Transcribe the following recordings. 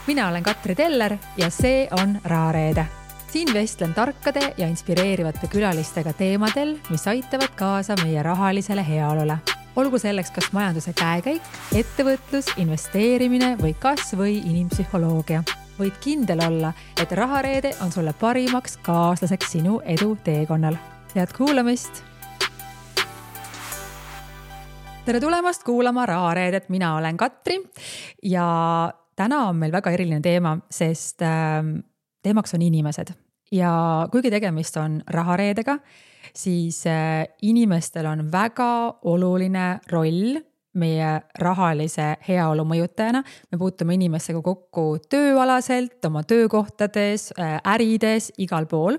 Mina olen Katri Teller ja see on Rahareede. Siin vestlen tarkade ja inspireerivate külalistega teemadel, mis aitavad kaasa meie rahalisele heaolule. Olgu selleks kas majanduse käekäik, ettevõtlus, investeerimine või kas või inimpsühholoogia. Võid kindel olla, et Rahareede on sulle parimaks kaaslaseks sinu edu teekonnal. Head kuulamist! Tere tulemast kuulama Rahareedet, mina olen Katri ja täna on meil väga eriline teema, sest teemaks on inimesed. Ja kuigi tegemist on Rahareedega, siis inimestel on väga oluline roll meie rahalise heaolu mõjutajana. Me puutume inimestega kokku tööalaselt, oma töökohtades, ärides, igal pool.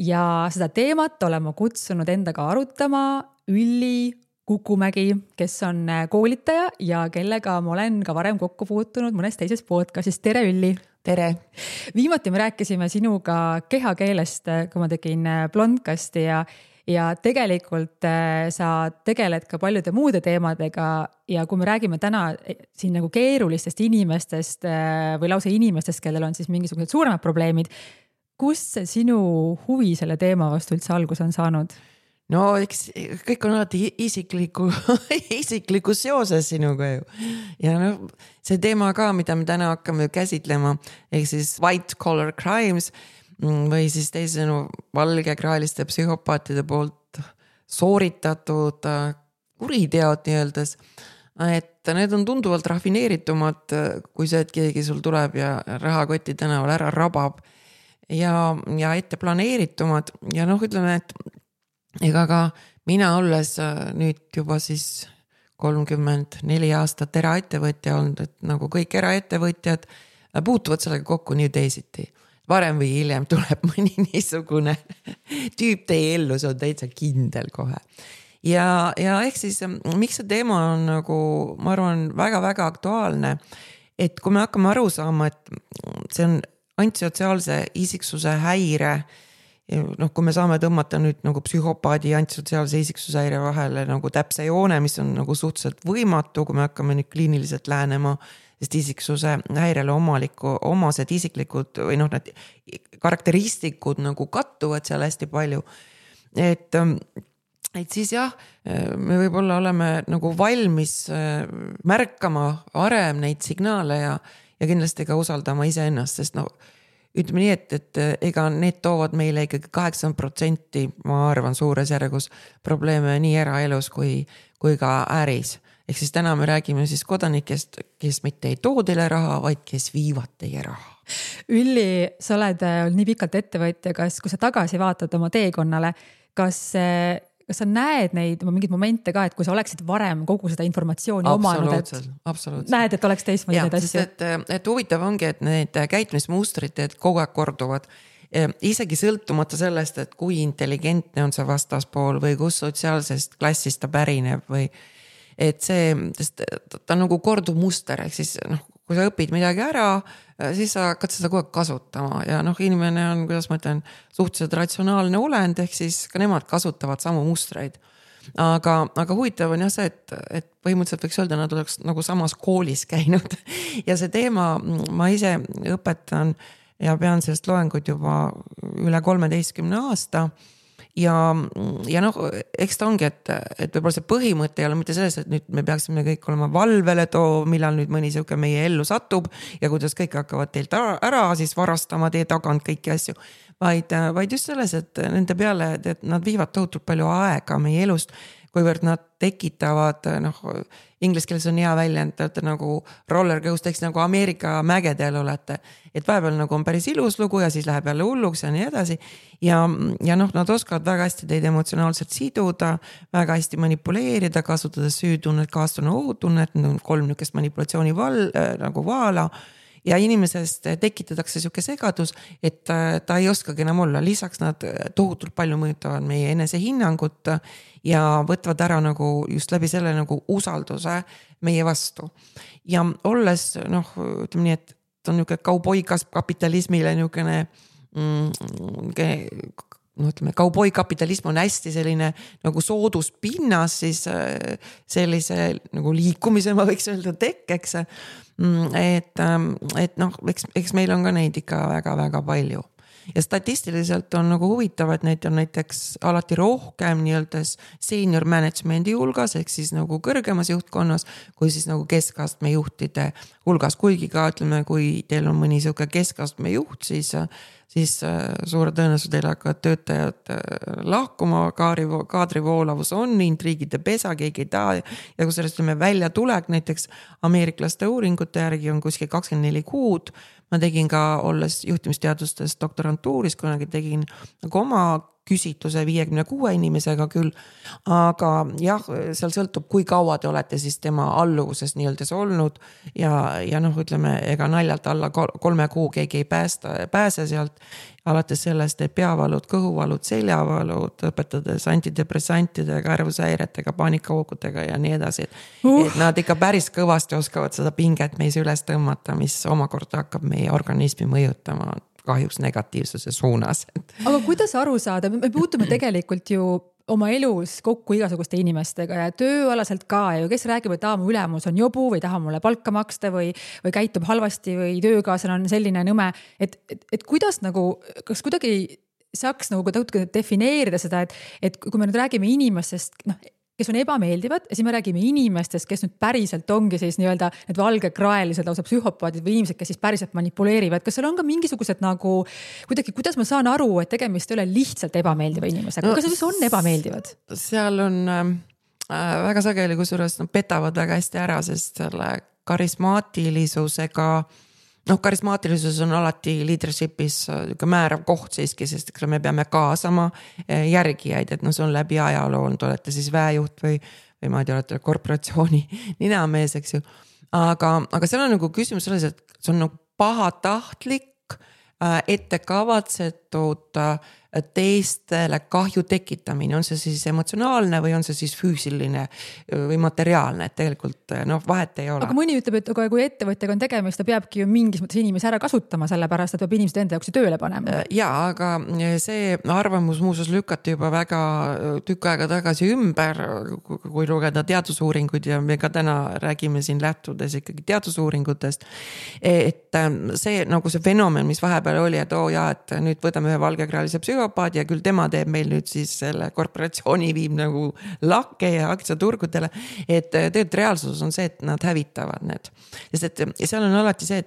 Ja seda teemat olen ma kutsunud endaga arutama Ülli Kukumägi, kes on koolitaja ja kellega ma olen ka varem kokku puutunud mõnes teises podcastis. Tere Ülli! Tere! Viimati me rääkisime sinuga kehakeelest, kui ma tegin blondcasti ja tegelikult sa tegeled ka paljude muude teemadega ja kui me räägime täna siin nagu keerulistest inimestest või lausa inimestest, kellel on siis mingisugused suuremad probleemid, kust see sinu huvi selle teema vastu üldse algus on saanud? No eks kõik on alati isikliku seoses sinuga ju. Ja see teema ka, mida me täna hakkame käsitlema, ehk siis white collar crimes või siis teisenu valgekraeliste psühhopaatide poolt sooritatud kuriteod nii-öeldes, et need on tunduvalt rafineeritumad kui see, et keegi sul tuleb ja rahakoti tänaval ära rabab ja ette planeeritumad ja ütleme, et ega ka mina olles nüüd juba siis 34 aastat eraettevõtja olnud, et nagu kõik eraettevõtjad puutuvad sellega kokku nii teisiti. Varem või hiljem tuleb mõni niisugune tüüp teie ellu, see on täitsa kindel kohe. Ja ehk siis, miks see teema on nagu, ma arvan, väga-väga aktuaalne, et kui me hakkame aru saama, et see on antisotsiaalse isiksuse häire, kui me saame tõmmata nüüd nagu psühhopaadi ja antisotsiaalse isiksuse häire vahele nagu täpse joone, mis on nagu suhteliselt võimatu, kui me hakkame nüüd kliiniliselt lähenema, sest isiksuse häirele omased isiklikud või need karakteristikud nagu kattuvad seal hästi palju. Et siis jah, me võib-olla oleme nagu valmis märkama varem neid signaale ja kindlasti ka usaldama iseennast, sest ütleme nii, et ega need toovad meile ikkagi 8%, ma arvan, suures järgus probleeme nii eraelus kui ka äris. Ehk siis täna me räägime siis kodanikest, kes mitte ei too teile raha, vaid kes viivad teie raha. Ülli, sa oled nii pikalt ettevõtja, kui sa tagasi vaatad oma teekonnale, kas sa näed neid mingeid momente ka, et kui sa oleksid varem kogu seda informatsiooni omanud, absoluutselt. Näed, et oleks teistmoodi neid asju? Et huvitav ongi, et need käitumismustrid kogu aeg korduvad. Isegi sõltumata sellest, et kui intelligentne on see vastaspool või kus sotsiaalsest klassist ta pärineb või et ta nagu korduv muster, ehk siis kui sa õpid midagi ära, siis sa hakkad seda kogu aeg kasutama ja inimene on, kuidas ma ütlen, suhteliselt ratsionaalne olend, ehk siis ka nemad kasutavad samu mustreid. Aga huvitav on jah see, et põhimõtteliselt võiks öelda, nad oleks nagu samas koolis käinud ja see teema ma ise õpetan ja pean sellest loengut juba üle 13 aasta ja eks ta ongi, et võib-olla see põhimõte ei ole mitte selles, et nüüd me peaksime kõik olema valvele millal nüüd mõni siuke meie ellu satub ja kuidas kõik hakkavad teilt ära siis varastama teie tagant kõiki asju, vaid just selles, et nende peale, et nad viivad tohutult palju aega meie elust, kuivõrd nad tekitavad, inglis keeles on hea väljend, te olete nagu roller coaster, nagu Ameerika mägedel olete, et vahepeal nagu on päris ilus lugu ja siis läheb jälle hulluks ja nii edasi ja nad oskavad väga hästi teid emotsionaalselt siduda, väga hästi manipuleerida, kasutades süütunnet, kaastunne, ohutunnet, 3 nükest manipulatsiooni nagu vaala ja inimesest tekitatakse siuke segadus, et ta ei oskagi enam olla. Lisaks nad tohutult palju mõjutavad meie enesehinnangut ja võtvad ära nagu just läbi selle nagu usalduse meie vastu. Ja olles, ütleme nii, et ta on niisugune kauboikas kapitalismile niisugune ütleme, kauboikapitalism on hästi selline nagu sooduspinnas siis sellise nagu liikumise ma võiks öelda tekkeks. Et noh, eks meil on ka neid ikka väga-väga palju. Ja statistiliselt on nagu huvitav, et neid on näiteks alati rohkem nii-öelda senior management'i hulgas, ehk siis nagu kõrgemas juhtkonnas, kui siis nagu keskastme juhtide hulgas. Kuigi ka ütleme, kui teil on mõni siuke keskastme juht, siis suure tõenäosus teil hakkavad töötajad lahkuma, kaadrivoolavus on, intriigide pesa, keegi ei taha. Ja kui sellest välja tulek, näiteks ameeriklaste uuringute järgi on kuskil 24 kuud. Ma tegin ka, olles juhtimisteadustes doktorantuuris, kunagi tegin nagu oma küsitluse 56 inimesega küll, aga jah, seal sõltub, kui kaua te olete siis tema alluvuses nii-öelda olnud ja noh, ütleme, ega naljalt alla 3 kuu keegi ei pääse sealt, alates sellest, et peavalud, kõhuvalud, seljavalud, õpetades antidepressantide, kärvushäiretega, paanikahoogudega ja nii edasi. Et nad ikka päris kõvasti oskavad seda pinget meis üles tõmmata, mis omakorda hakkab meie organismi mõjutama kahjuks negatiivsuse suunas. Aga kuidas aru saada? Me puutume tegelikult ju oma elus kokku igasuguste inimestega ja tööalaselt ka ju, kes räägib, et mu ülemus on jobu või taha mulle palka maksta või käitub halvasti või töökaaslane on selline nõme, et kuidas nagu, kas kuidagi saaks nagu defineerida seda, et kui me nüüd räägime inimestest, kes on ebameeldivad ja siis me räägime inimestest, kes nüüd päriselt ongi siis nii-öelda need valgekraelised lausa psühhopaadid või inimesed, kes siis päriselt manipuleerivad. Kas seal on ka mingisugused nagu kuidagi, kuidas ma saan aru, et tegemist ei ole lihtsalt ebameeldiva inimesega? Kas need on ebameeldivad? Seal on väga sageli, kusjuures petavad väga hästi ära, sest selle karismaatilisusega karismaatilisus on alati leadership'is määrav koht siiski, sest me peame kaasama järgijaid, et see on läbi ajaloo, olete siis väejuht või ma ei tea, olete korporatsiooni ninamees, eks ju. Aga seal on nagu küsimus selles, et see on nagu pahatahtlik, ettekavatsetud teistele kahju tekitamine, on see siis emotsionaalne või on see siis füüsiline või materiaalne, et tegelikult vahet ei ole. Aga mõni ütleb, et kui ettevõtjaga on tegemist, ta peabki ju mingis mõttes inimesi ära kasutama, sellepärast, et peab inimesed enda jaoks tööle panema. Ja, aga see arvamus muuseas lükati juba väga tükk aega tagasi ümber, kui lugeda teadusuuringuid ja me ka täna räägime siin lähtudes ikkagi teadusuuringutest, et see nagu see fenomen, mis vahepeal oli, et et nüüd võtame ühe valgekraalise psühhopaadi ja küll tema teeb meil nüüd siis selle korporatsiooni viib nagu lakke ja aktsiaturgudele, et tegelikult reaalsus on see, et nad hävitavad need. Sest et seal on alati see,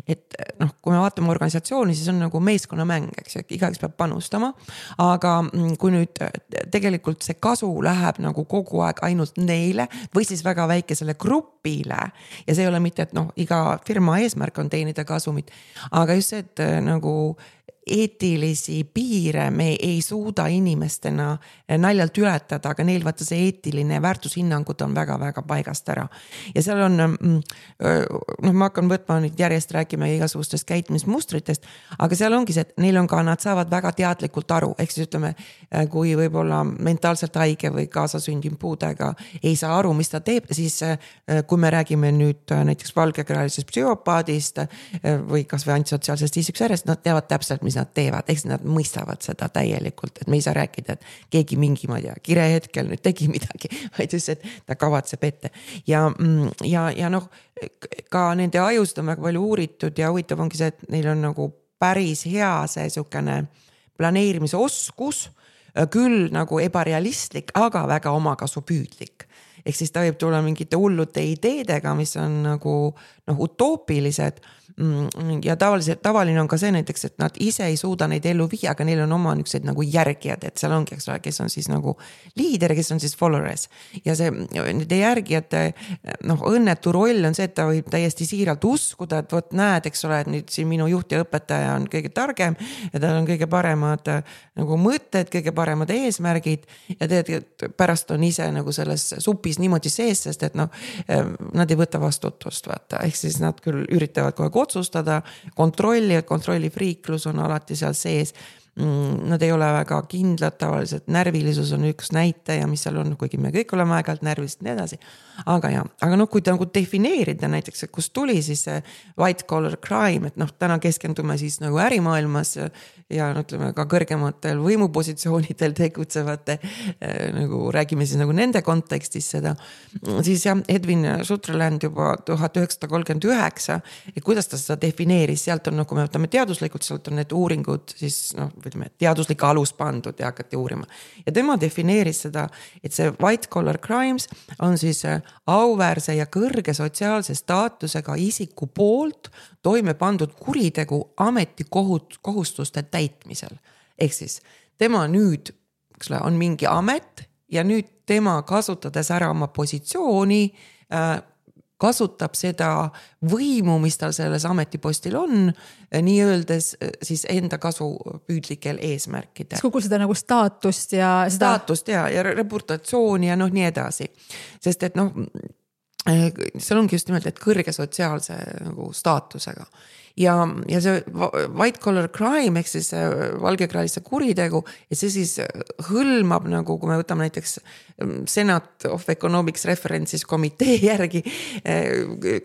et kui me vaatame organisatsiooni, siis on nagu meeskonnamäng, eks, igaüks peab panustama, aga kui nüüd tegelikult see kasu läheb nagu kogu aeg ainult neile või siis väga väikesele grupile ja see ei ole mitte, et iga firma eesmärk on teenida kasumit, aga just see, et nagu eetilisi piire me ei suuda inimestena naljalt ületada, aga neil vaata see eetiline väärtushinnangud on väga-väga paigast ära. Ja seal on, ma hakkan võtma nüüd järjest rääkima igasugustest käitumismustritest, aga seal ongi see, et neil on ka, nad saavad väga teadlikult aru, ehk siis ütleme, kui võib-olla mentaalselt haige või kaasasündinud puudega ei saa aru, mis ta teeb, siis kui me räägime nüüd näiteks valgekraalisest psühhopaadist või kas või antisotsiaalsest isiksusjärjest, nad teavad täpselt, mis nad teevad, eks nad mõistavad seda täielikult, et me ei saa rääkida, et keegi mingi, ma ei tea, kire hetkel nüüd tegi midagi, vaid just, et ta kavatseb ette. Ja ka nende ajust on väga palju uuritud ja huvitav ongi see, et neil on nagu päris hea see sukene planeerimise oskus, küll nagu ebarealistlik, aga väga omakasupüüdlik. Ehk siis ta võib tulla mingite hullute ideedega, mis on nagu utoopilised ja tavaline on ka see näiteks, et nad ise ei suuda neid ellu viia, aga neil on oma niisugused nagu järgijad, et seal ongi, kes on siis nagu liider, kes on siis followers ja see nende järgijate õnnetu roll on see, et ta võib täiesti siiralt uskuda, et vot näed, eks ole, et nüüd siin minu juht ja õpetaja on kõige targem ja tal on kõige paremad nagu mõtted, kõige paremad eesmärgid ja tegelikult pärast on ise nagu selles supis niimoodi sees, sest et nad ei võta vastutust, vaata, ehk siis nad küll üritavad kogu otsustada, kontrollifriiklus on alati seal sees Nad ei ole väga kindlad, tavaliselt närvilisus on üks näitaja, mis seal on, kuigi me kõik oleme aeg-ajalt närvilised ja nii edasi. Aga noh, kui ta nagu defineerida näiteks, kust tuli siis see white collar crime, et noh, täna keskendume siis nagu ärimaailmas ja ütleme ka kõrgematel võimupositsioonidel tegutsevate, nagu räägime siis nagu nende kontekstis seda, siis jah, Edwin Sutherland juba 1939, et kuidas ta seda defineeris, sealt on, kui me võtame teaduslikult, sealt on need uuringud siis noh, ütleme, teaduslik alus pandud ja hakati uurima. Ja tema defineeris seda, et see white collar crimes on siis auväärse ja kõrge sotsiaalse staatusega isiku poolt toime pandud kuritegu ametikohustuste täitmisel. Ehk siis tema nüüd on mingi amet ja nüüd tema kasutades ära oma positsiooni kasutab seda võimu, mis tal selles ametipostil on, nii öeldes siis enda kasupüüdlikel eesmärkidel. Kogu seda nagu staatust ja reputatsiooni ja noh nii edasi. Sest et noh, seal ongi just nimelt, et kõrge sotsiaalse nagu staatusega. Ja see white collar crime, ehk siis valgekraaliste kuritegu, ja see siis hõlmab nagu, kui me võtame näiteks Senate of Economics References komitee järgi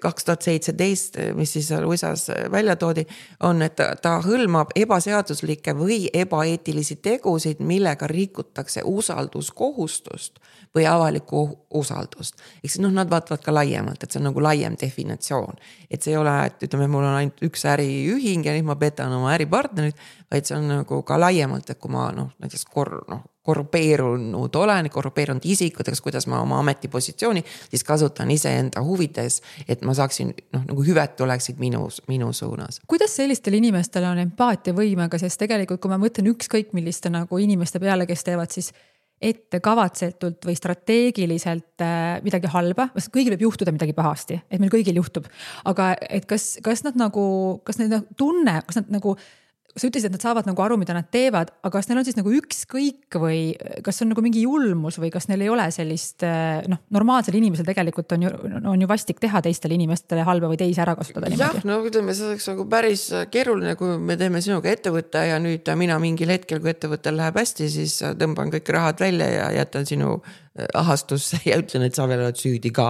2017, mis siis USAs välja toodi, on, et ta hõlmab ebaseaduslikke või ebaeetilisi tegusid, millega rikutakse usalduskohustust või avalikku usaldust. Ehk siis nad vaatavad ka laiemalt, et see on nagu laiem definitsioon. Et see ei ole, et ütleme, mul on ainult üks äriühing ja nüüd ma petan oma äripartnerit, vaid see on nagu ka laiemalt, et kui ma näiteks korrupeerunud isikuteks, kuidas ma oma ametipositsiooni siis kasutan iseenda huvides, et ma saaksin nagu hüved oleksid minu suunas. Kuidas sellistel inimestel on empaatia võimega, sest tegelikult kui ma mõtlen ükskõik milliste nagu inimeste peale, kes teevad siis ette kavatsetult või strateegiliselt midagi halba, kõigil võib juhtuda midagi pahasti, et meil kõigil juhtub, aga et kas nad tunne, kas nad nagu, sa ütlesid, et nad saavad nagu aru, mida nad teevad, aga kas neil on siis nagu ükskõik või kas on nagu mingi julmus või kas neil ei ole sellist, normaalsel inimesel tegelikult on ju vastik teha teistele inimestele halba või teisi ära kasutada niimoodi? Jah, ütleme, see oleks nagu päris keeruline, kui me teeme sinuga ettevõtte ja nüüd mina mingil hetkel, kui ettevõttel läheb hästi, siis tõmban kõik rahad välja ja jätan sinu ahastusse ja ütlen, et sa veel oled süüdi ka.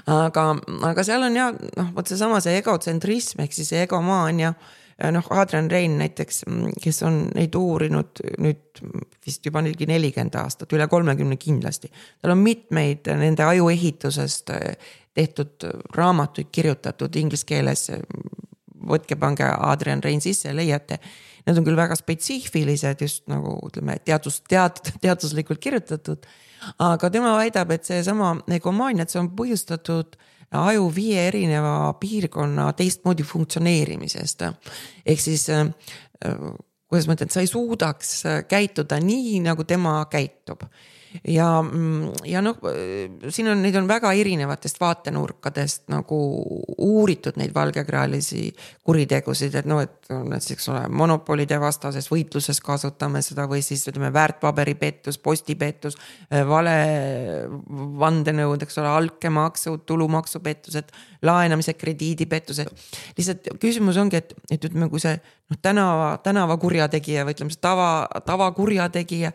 Aga seal on ja, võt seesama see egotsentrism, ehk siis egomaania. Adrian Rain näiteks, kes on neid uurinud nüüd vist juba 40 aastat, üle 30 kindlasti. Tal on mitmeid nende ajuehitusest tehtud raamatuid kirjutatud inglise keeles. Võtke pange Adrian Rain sisse ja leiate. Need on küll väga spetsiifilised, just nagu ütleme, teaduslikult kirjutatud. Aga tema väidab, et see sama egomaania, et see on põhjustatud aju 5 erineva piirkonna teistmoodi funktsioneerimisest. Ehk siis, kuidas ma ütlen, sa ei suudaks käituda nii, nagu tema käitub. Ja siin on, neid on väga erinevatest vaatenurkadest nagu uuritud neid valgekraalisi kuritegusid, et et ole, monopolide vastases võitluses kasutame seda või siis ütleme väärtpaberipettus, postipettus, vale vandenõud, ole, alkemaksud, tulumaksupettused, laenamise krediidipettused. Lihtsalt küsimus ongi, et ütleme, kui see tänava kurjategija või ütleme, tava kurjategija,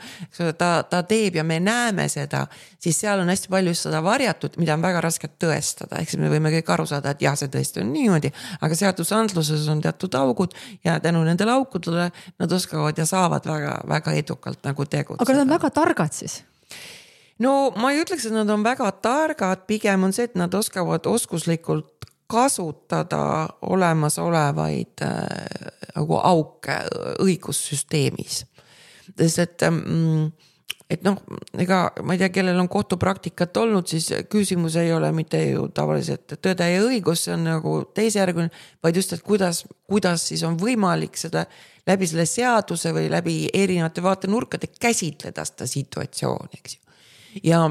ta teeb ja me näeme seda, siis seal on hästi palju seda varjatud, mida on väga raske tõestada. Ehk siis me võime kõik aru saada, et jah, see tõesti on niimoodi, aga seadusandluses on teatud augud ja tänu nendele aukudele nad oskavad ja saavad väga, väga edukalt nagu tegutseda. Aga nad on väga targad siis? No ma ei ütleks, et nad on väga targad, pigem on see, et nad oskavad oskuslikult kasutada olemasolevaid nagu auke õigussüsteemis. Sest et ega ma ei tea, kellel on kohtupraktikat olnud, siis küsimus ei ole mitte ju tavaliselt tõde ja õigus, see on nagu teisejärguline, vaid just, et kuidas siis on võimalik seda läbi selle seaduse või läbi erinevate vaatenurkade käsitleda seda situatsiooni, eks ju. Ja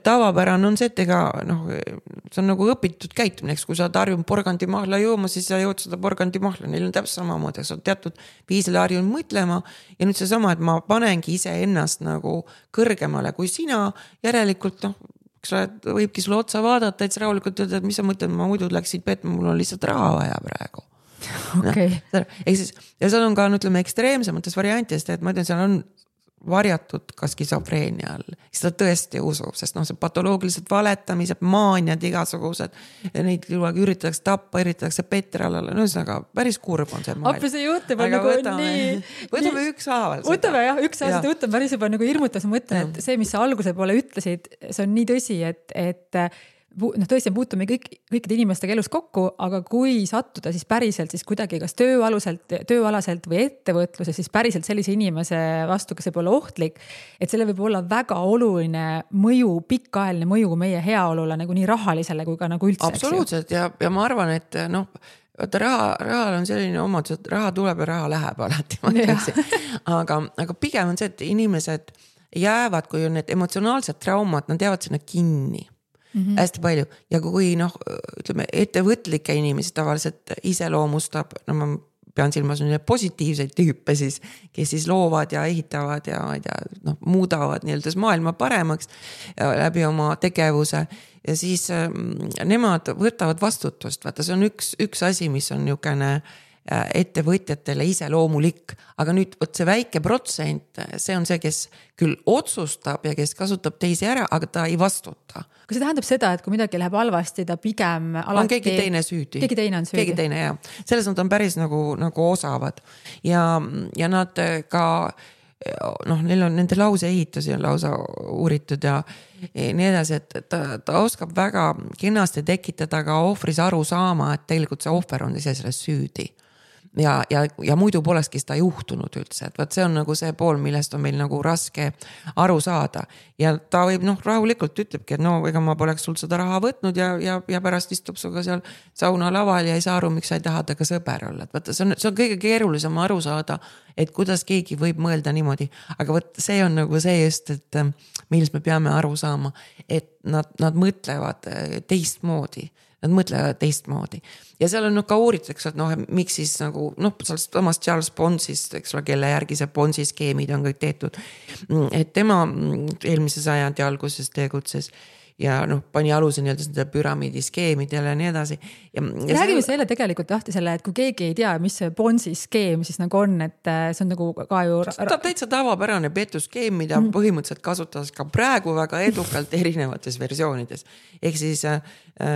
tavapärane on see, et ega see on nagu õpitud käitumine, kui sa harjun porgandimahla jooma, siis sa jood seda porgandimahla, neil on täpselt samamoodi, sa oled teatud viisil harjun mõtlema ja nüüd see sama, et ma panengi ise ennast nagu kõrgemale kui sina, järelikult võibki sulle otsa vaadata, et sa rahulikult öelda, et mis sa mõtled, ma muidu läksid petma, mul on lihtsalt raha vaja praegu. okei. Ehk siis, ja seal on ka, ütleme, ekstreemsemates variantidest, et ma ütlen, seal on varjatud ka skisofreenia all. Seda tõesti usub, sest see patoloogilised valetamised, maaniad igasugused, neid üritatakse tappa, üritatakse petralale, ühesõnaga päris kurb on see maailm. Appi see juhtub on nagu nii... Võtame ükshaaval seda. Võtame jah, ükshaaval seda võtame päris juba nagu hirmutas, ma mõtlen, et see, mis sa alguse poole ütlesid, see on nii tõsi, et tõesti puutume kõikide inimestega elus kokku, aga kui sattuda siis päriselt siis kuidagi kas tööalaselt või ettevõtluses, siis päriselt sellise inimese vastu, kes võib olla ohtlik, et selle võib olla väga oluline mõju, pikaajaline mõju meie heaolule nagu nii rahalisele kui ka nagu üldse. Absoluutselt ja ma arvan, et rahal on selline omadus, et raha tuleb ja raha läheb alati, ma ütleksin. Aga pigem on see, et inimesed jäävad, kui on need emotsionaalsed traumad, nad jäävad sinna kinni. Hästi palju ja kui ütleme, ettevõtlikke inimesi tavaliselt iseloomustab, ma pean silmas positiivseid tüüpe siis, kes siis loovad ja ehitavad ja muudavad nii-öelda maailma paremaks läbi oma tegevuse ja siis nemad võtavad vastutust, vaata see on üks asi, mis on niisugune ettevõtjatele iseloomulik, aga nüüd võt see väike protsent, see on see, kes küll otsustab ja kes kasutab teisi ära, aga ta ei vastuta. Kas see tähendab seda, et kui midagi läheb halvasti, ta pigem alati... On keegi teine süüdi. Keegi teine on süüdi. Keegi teine, jah. Selles nad on päris nagu osavad. Ja nad ka, neil on nende lause ehitusi on lausa uuritud ja nii edasi, et ta oskab väga kenasti tekitada ka ohvris aru saama, et tegelikult see ohver on ise selles süüdi. Ja muidu polekski seda juhtunud üldse, et võt see on nagu see pool, millest on meil nagu raske aru saada ja ta võib rahulikult ütlebki, et ega ma poleks sul seda raha võtnud ja pärast istub suga seal sauna laval ja ei saa aru, miks sa ei taha temaga sõber olla, et võtta, see on kõige keerulisem aru saada, et kuidas keegi võib mõelda niimoodi, aga võt see on nagu see just, et millest me peame aru saama, et nad mõtlevad teistmoodi. Nad mõtlevad teistmoodi. Ja seal on ka uuritakse, et miks siis nagu, samas Charles Ponsist, eks ole, kelle järgi see Ponsi skeemid on kõik tehtud. Et tema eelmise sajandi alguses tegutses ja pani aluse nii-öelda püramiidi skeemidele ja nii edasi. Räägime selle tegelikult lahti selle, et kui keegi ei tea, mis see Ponsi skeem siis nagu on, et see on nagu ka ju... Ta täitsa tavapärane petuskeem, mida põhimõtteliselt kasutas ka praegu väga edukalt erinevates versioonides. Ehk siis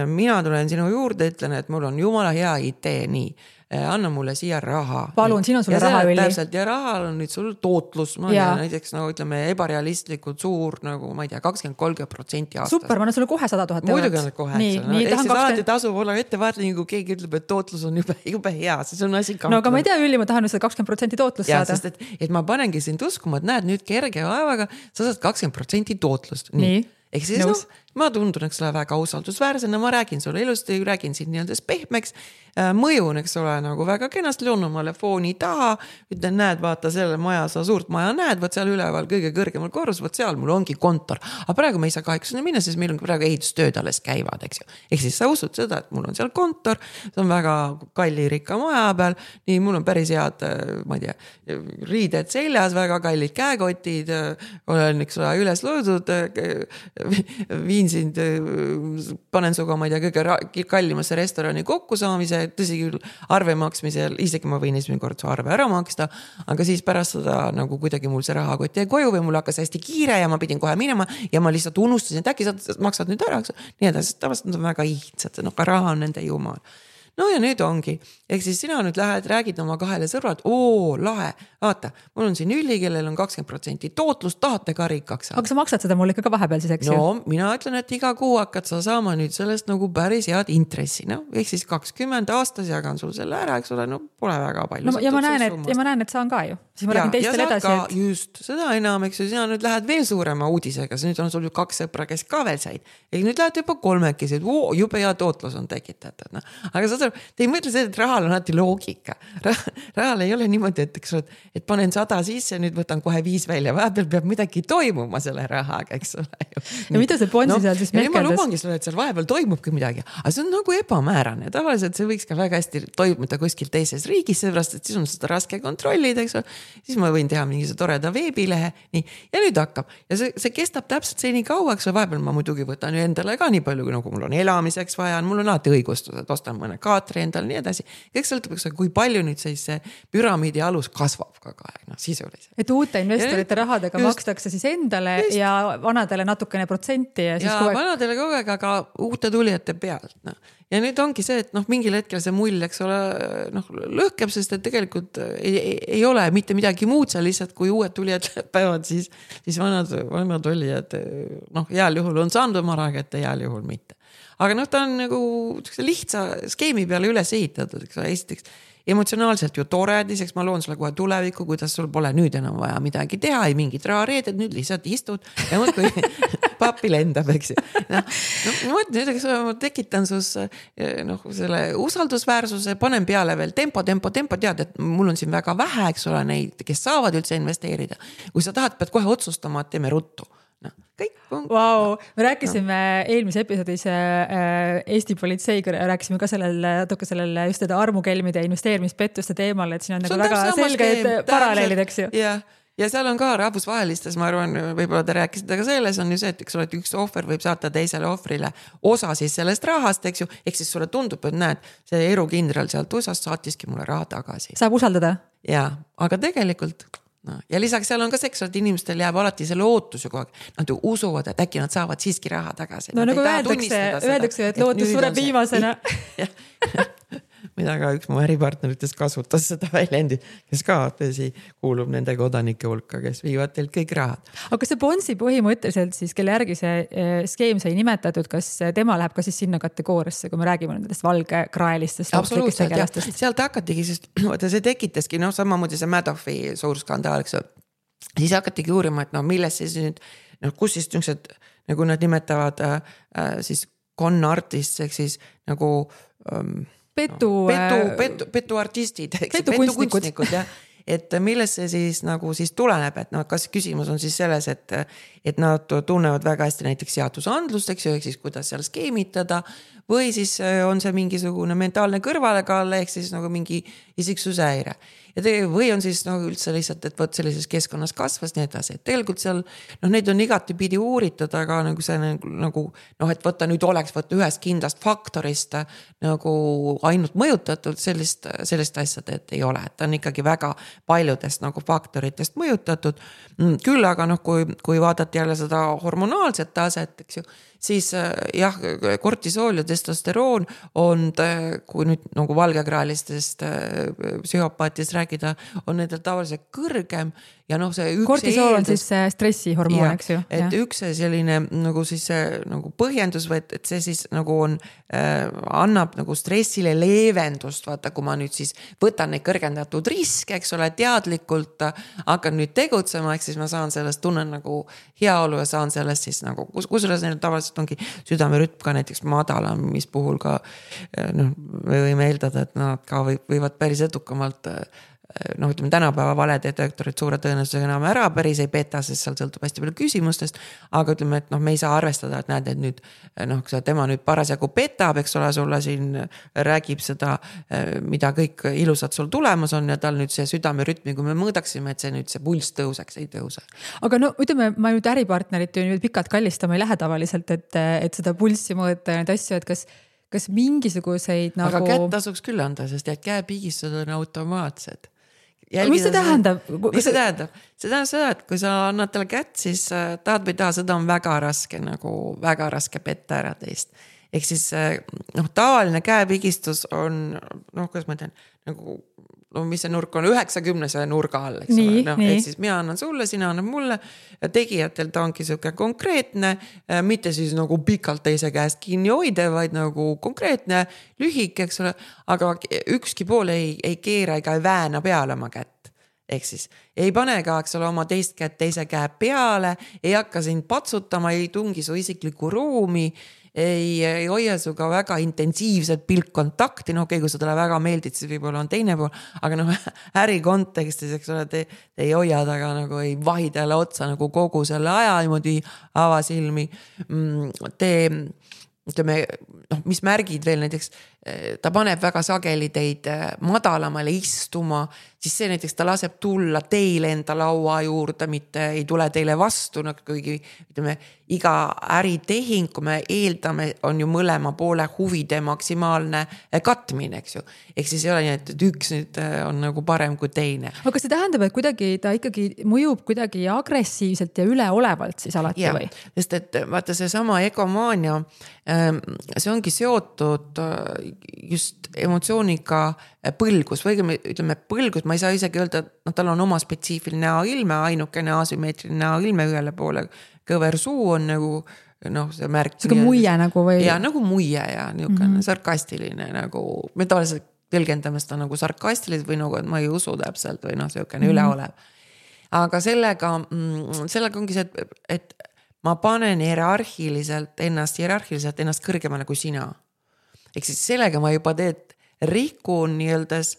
mina tulen sinu juurde, ütlen, et mul on jumala hea idee, nii. Anna mulle siia raha. Palun, siin on sulle raha üli. Täpselt, ja rahal on nüüd sul tootlus, näiteks ütleme ebarealistlikult suur, nagu ma ei tea, 20-30% aastas. Super, ma annan sulle kohe 100 000 €. Muidugi on kohe. Ehk siis alati tasub olla ettevaatlik, kui keegi ütleb, et tootlus on jube hea, siis on asi kahtlev. No aga ma ei tea, Üli, ma tahan seda 20% tootlust saada. Ja, sest et ma panengi sind uskuma, et näed nüüd kerge vaevaga, sa saad 20% tootlust. Nii. Ehk siis ma tundun, eks ole, väga usaldusväärsena, ma räägin sulle ilusti, räägin siin nii-öelda pehmeks, mõjun, eks ole, nagu väga kenasti loonumale fooni taha, ütlen, näed, vaata selle maja, sa suurt maja näed, võt seal üleval kõige kõrgemal korrus, võt seal mul ongi kontor. Aga praegu me ei saa kaheksa minna, sest meil on praegu ehitustööd alles käivad, eks ju. Ehk siis sa usud seda, et mul on seal kontor, see on väga kalli rikka maja peal, nii mul on päris head, ma ei tea, riided seljas, väga kallid käekotid, olen, eks ole, üles loodud, viin sind, panen suga, ma ei tea, kõige kallimasse restorani kokkusaamise, tõsi küll arve maksmisel, isegi ma võin esimene kord su arve ära maksta, aga siis pärast seda nagu kuidagi mul see rahakott jäi koju või mul hakkas hästi kiire ja ma pidin kohe minema ja ma lihtsalt unustasin, et äkki sa maksad nüüd ära, nii edasi, tavaliselt nad on väga ihtsad, ka raha on nende jumal. No ja nüüd ongi, ehk siis sina nüüd lähed, räägid oma kahele sõbrad, lahe, vaata, mul on siin Üli, kellel on 20% tootlust, tahate ka rikkaks saada. Aga sa maksad seda mulle ikka vahepeal siis, eks ju? No, mina ütlen, et iga kuu hakkad sa saama nüüd sellest nagu päris head intressi, ehk siis 20 aastas jagan sul selle ära, eks ole, pole väga palju. No, ja ma näen, et saan ka ju. Siis ma räägin teistele edasi. Ja just, seda enam, eks ju, sina nüüd lähed veel suurema uudisega, nüüd on sul ju 2 sõpra, kes ka veel said. Ehk nüüd lähed juba 3, jube hea tootlus on tekitatud. Aga sa te ei mõtle seda, et rahal on alati loogika. Rahal ei ole niimoodi, et panen 100 sisse, nüüd võtan kohe 5 välja. Vahepeal peab midagi toimuma selle rahaga, eks ole. Ja mida see Ponsi seal siis mehkeldas? Ma lubangi sulle, et seal vahepeal toimubki midagi. Aga see on nagu ebamäärane. Tavaliselt see võiks ka väga hästi toimuda kuskil teises riigis, seepärast, et siis on seda raske kontrollida, eks ole. Siis ma võin teha mingi toreda veebilehe. Nii. Ja nüüd hakkab. Ja see kestab täpselt see nii kauaks. Vahepeal ma muidugi võtan ju endale ka nii palju, nagu mul on elamiseks vaja. Mul on alati õigustused, ostan mõne teatri endal, nii edasi. Kõik sõltub, kui palju nüüd see püramiidi alus kasvab kogu aeg, sisuliselt. Et uute investorite rahadega makstakse siis endale ja vanadele natukene protsenti. Ja vanadele kogu aeg, aga uute tulijate pealt. Ja nüüd ongi see, et mingil hetkel see mull, eks ole, lõhkeb, sest et tegelikult ei ole mitte midagi muud seal lihtsalt, kui uued tulijad päevad, siis vanad olijad, heal juhul on saanud oma raha kätte, heal juhul mitte. Aga ta on nagu lihtsa skeemi peale üles ehitatud, eks ole, esiteks emotsionaalselt ju tore, teiseks ma loon sulle kohe tulevikku, kuidas sul pole nüüd enam vaja midagi teha, ei mingit rahareeded, nüüd lihtsalt istud ja muudkui papi lendab, eks ju. Ma tekitan sus selle usaldusväärsuse, panen peale veel tempo, tead, et mul on siin väga vähe, eks ole, neid, kes saavad üldse investeerida. Kui sa tahad, pead kohe otsustama, et teeme ruttu. Kõik on... Wow. Me rääkisime eelmise episoodis Eesti politseiga, rääkisime ka sellel just armukelmide ja investeerimispettuste teemal, et siin on nagu väga selged paralleelid, eks ju. Ja seal on ka rahvusvahelistes, ma arvan, võib-olla te rääkisite ka selles, on ju see, et üks ohver võib saata teisele ohvrile osa siis sellest rahast, eks ju, ehk siis sulle tundub, et näed, see erukindral sealt USA-st saatiski mulle raha tagasi. Saab usaldada? Ja, aga tegelikult... Ja lisaks seal on ka seks, et inimestel jääb alati selle ootus ju kogu aeg. Nad ju usuvad, et äkki nad saavad siiski raha tagasi. No nagu öeldakse, et lootus sureb viimasena. Mida ka üks mu äripartneritest kasutas seda väljendi, kes ka kuulub nende kodanike hulka, kes viivad teilt kõik rahad. Aga see Bonsi põhimõtteliselt siis, kelle järgi see skeem sai nimetatud, kas tema läheb ka siis sinna kategooriasse, kui me räägime nendest valgekraelistest? Absoluutselt, jah. Sealt hakatigi, sest see tekitaski, samamoodi see Madoffi suur skandaal, eks ju. Siis hakatigi uurima, et milles siis nüüd, kus siis niisugused, nagu nad nimetavad siis con artists, ehk siis nagu... Petuartistid, petukunstnikud, jah. Et milles see siis nagu siis tuleneb, et kas küsimus on siis selles, et nad tunnevad väga hästi näiteks seadusandlust, eks ju, ehk siis kuidas seal skeemitada või siis on see mingisugune mentaalne kõrvalekaal, ehk siis nagu mingi isiksuse häire. Või on siis üldse lihtsalt, et võt sellises keskkonnas kasvas nii edasi, et tegelikult seal neid on igati pidi uuritud, aga nagu see nagu, et võtta nüüd oleks ühest kindlast faktorist nagu ainult mõjutatud sellist asjad, et ei ole, et ta on ikkagi väga paljudest nagu faktoritest mõjutatud. Küll aga kui vaadati jälle seda hormonaalset taset, eks ju, siis jah, kortisool ja testosteroon on, kui nüüd nagu valgekraelistest psühhopaatidest rääkida, on nendel tavaliselt kõrgem ja see üks kortisool on siis stressihormoon, eks ju. Et üks selline nagu siis nagu põhjendus või et see siis nagu on, annab nagu stressile leevendust, vaata, kui ma nüüd siis võtan neid kõrgendatud riske, eks ole, teadlikult hakkan nüüd tegutsema, eks siis ma saan sellest, tunnen nagu heaolu ja saan sellest siis nagu, kusjuures neil tavaliselt ongi südamerütm ka näiteks madalam, mis puhul ka me võime eeldada, et nad ka võivad päris edukamalt ütleme tänapäeva valedetektorid suure tõenäosusega enam ära päris ei peta, sest seal sõltub hästi palju küsimustest, aga ütleme, et me ei saa arvestada, et näed, et nüüd tema nüüd parasjagu petab, eks ole, sulle siin räägib seda, mida kõik ilusad sul tulemas on ja tal nüüd see südamerütmi, kui me mõõdaksime, et see nüüd see pulss tõuseks, ei tõuse. Aga ütleme, ma nüüd äripartnerit ju pikalt kallistama ei lähe tavaliselt, et seda pulssi mõõta ja neid asju, et kas mingisuguseid nagu... Aga kätt tasuks küll anda, sest käepigistused on automaatsed. Mis see tähendab? Mis see tähendab? See tähendab seda, et kui sa annad talle kätt, siis tahad või taha, seda on väga raske petta ära teist. Ehk siis tavaline käepigistus on, kuidas ma ütlen, nagu, mis see nurk on, 90 nurga all, eks ole. Ehk siis mina annan sulle, sina annad mulle ja tegijatel ta ongi siuke konkreetne, mitte siis nagu pikalt teise käest kinni hoide, vaid nagu konkreetne, lühik, eks ole, aga ükski pool ei keera ega ei vääna peale oma kätt. Ehk siis ei pane ka, eks ole, oma teist kätt teise käe peale, ei hakka sind patsutama, ei tungi su isiklikku ruumi, ei hoia suga väga intensiivset pilkkontakti, kui seda väga meeldid, siis võib-olla on teine pool, aga äri kontekstis, eks ole, te ei hoia taga nagu ei vahi talle otsa nagu kogu selle aja niimoodi avasilmi. Ütleme, mis märgid veel näiteks ta paneb väga sageli teid madalamale istuma, siis see näiteks ta laseb tulla teile enda laua juurde, mitte ei tule teile vastu, kuigi ütleme, iga äritehing, kui me eeldame, on ju mõlema poole huvide maksimaalne katmine, eks ju. Ehk siis ei ole nii, et üks nüüd on nagu parem kui teine. Aga kas see tähendab, et kuidagi ta ikkagi mõjub kuidagi agressiivselt ja üleolevalt siis alati või? Sest et vaata see sama egomaania, see ongi seotud just emotsiooniga põlgus või ütleme põlgus, ma ei saa isegi öelda, et tal on oma spetsiifiline näoilme, ainukene asümmeetriline näoilme ühele poole, kõver suu on nagu see märk. See muie nagu või? Ja nagu muie ja niisugune sarkastiline nagu, me tavaliselt tõlgendame seda nagu sarkastiliselt või nagu, et ma ei usu täpselt või niisugune üleolev. Aga sellega ongi see, et ma panen hierarhiliselt ennast kõrgemale kui sina. Ehk siis sellega ma juba rikun nii-öeldes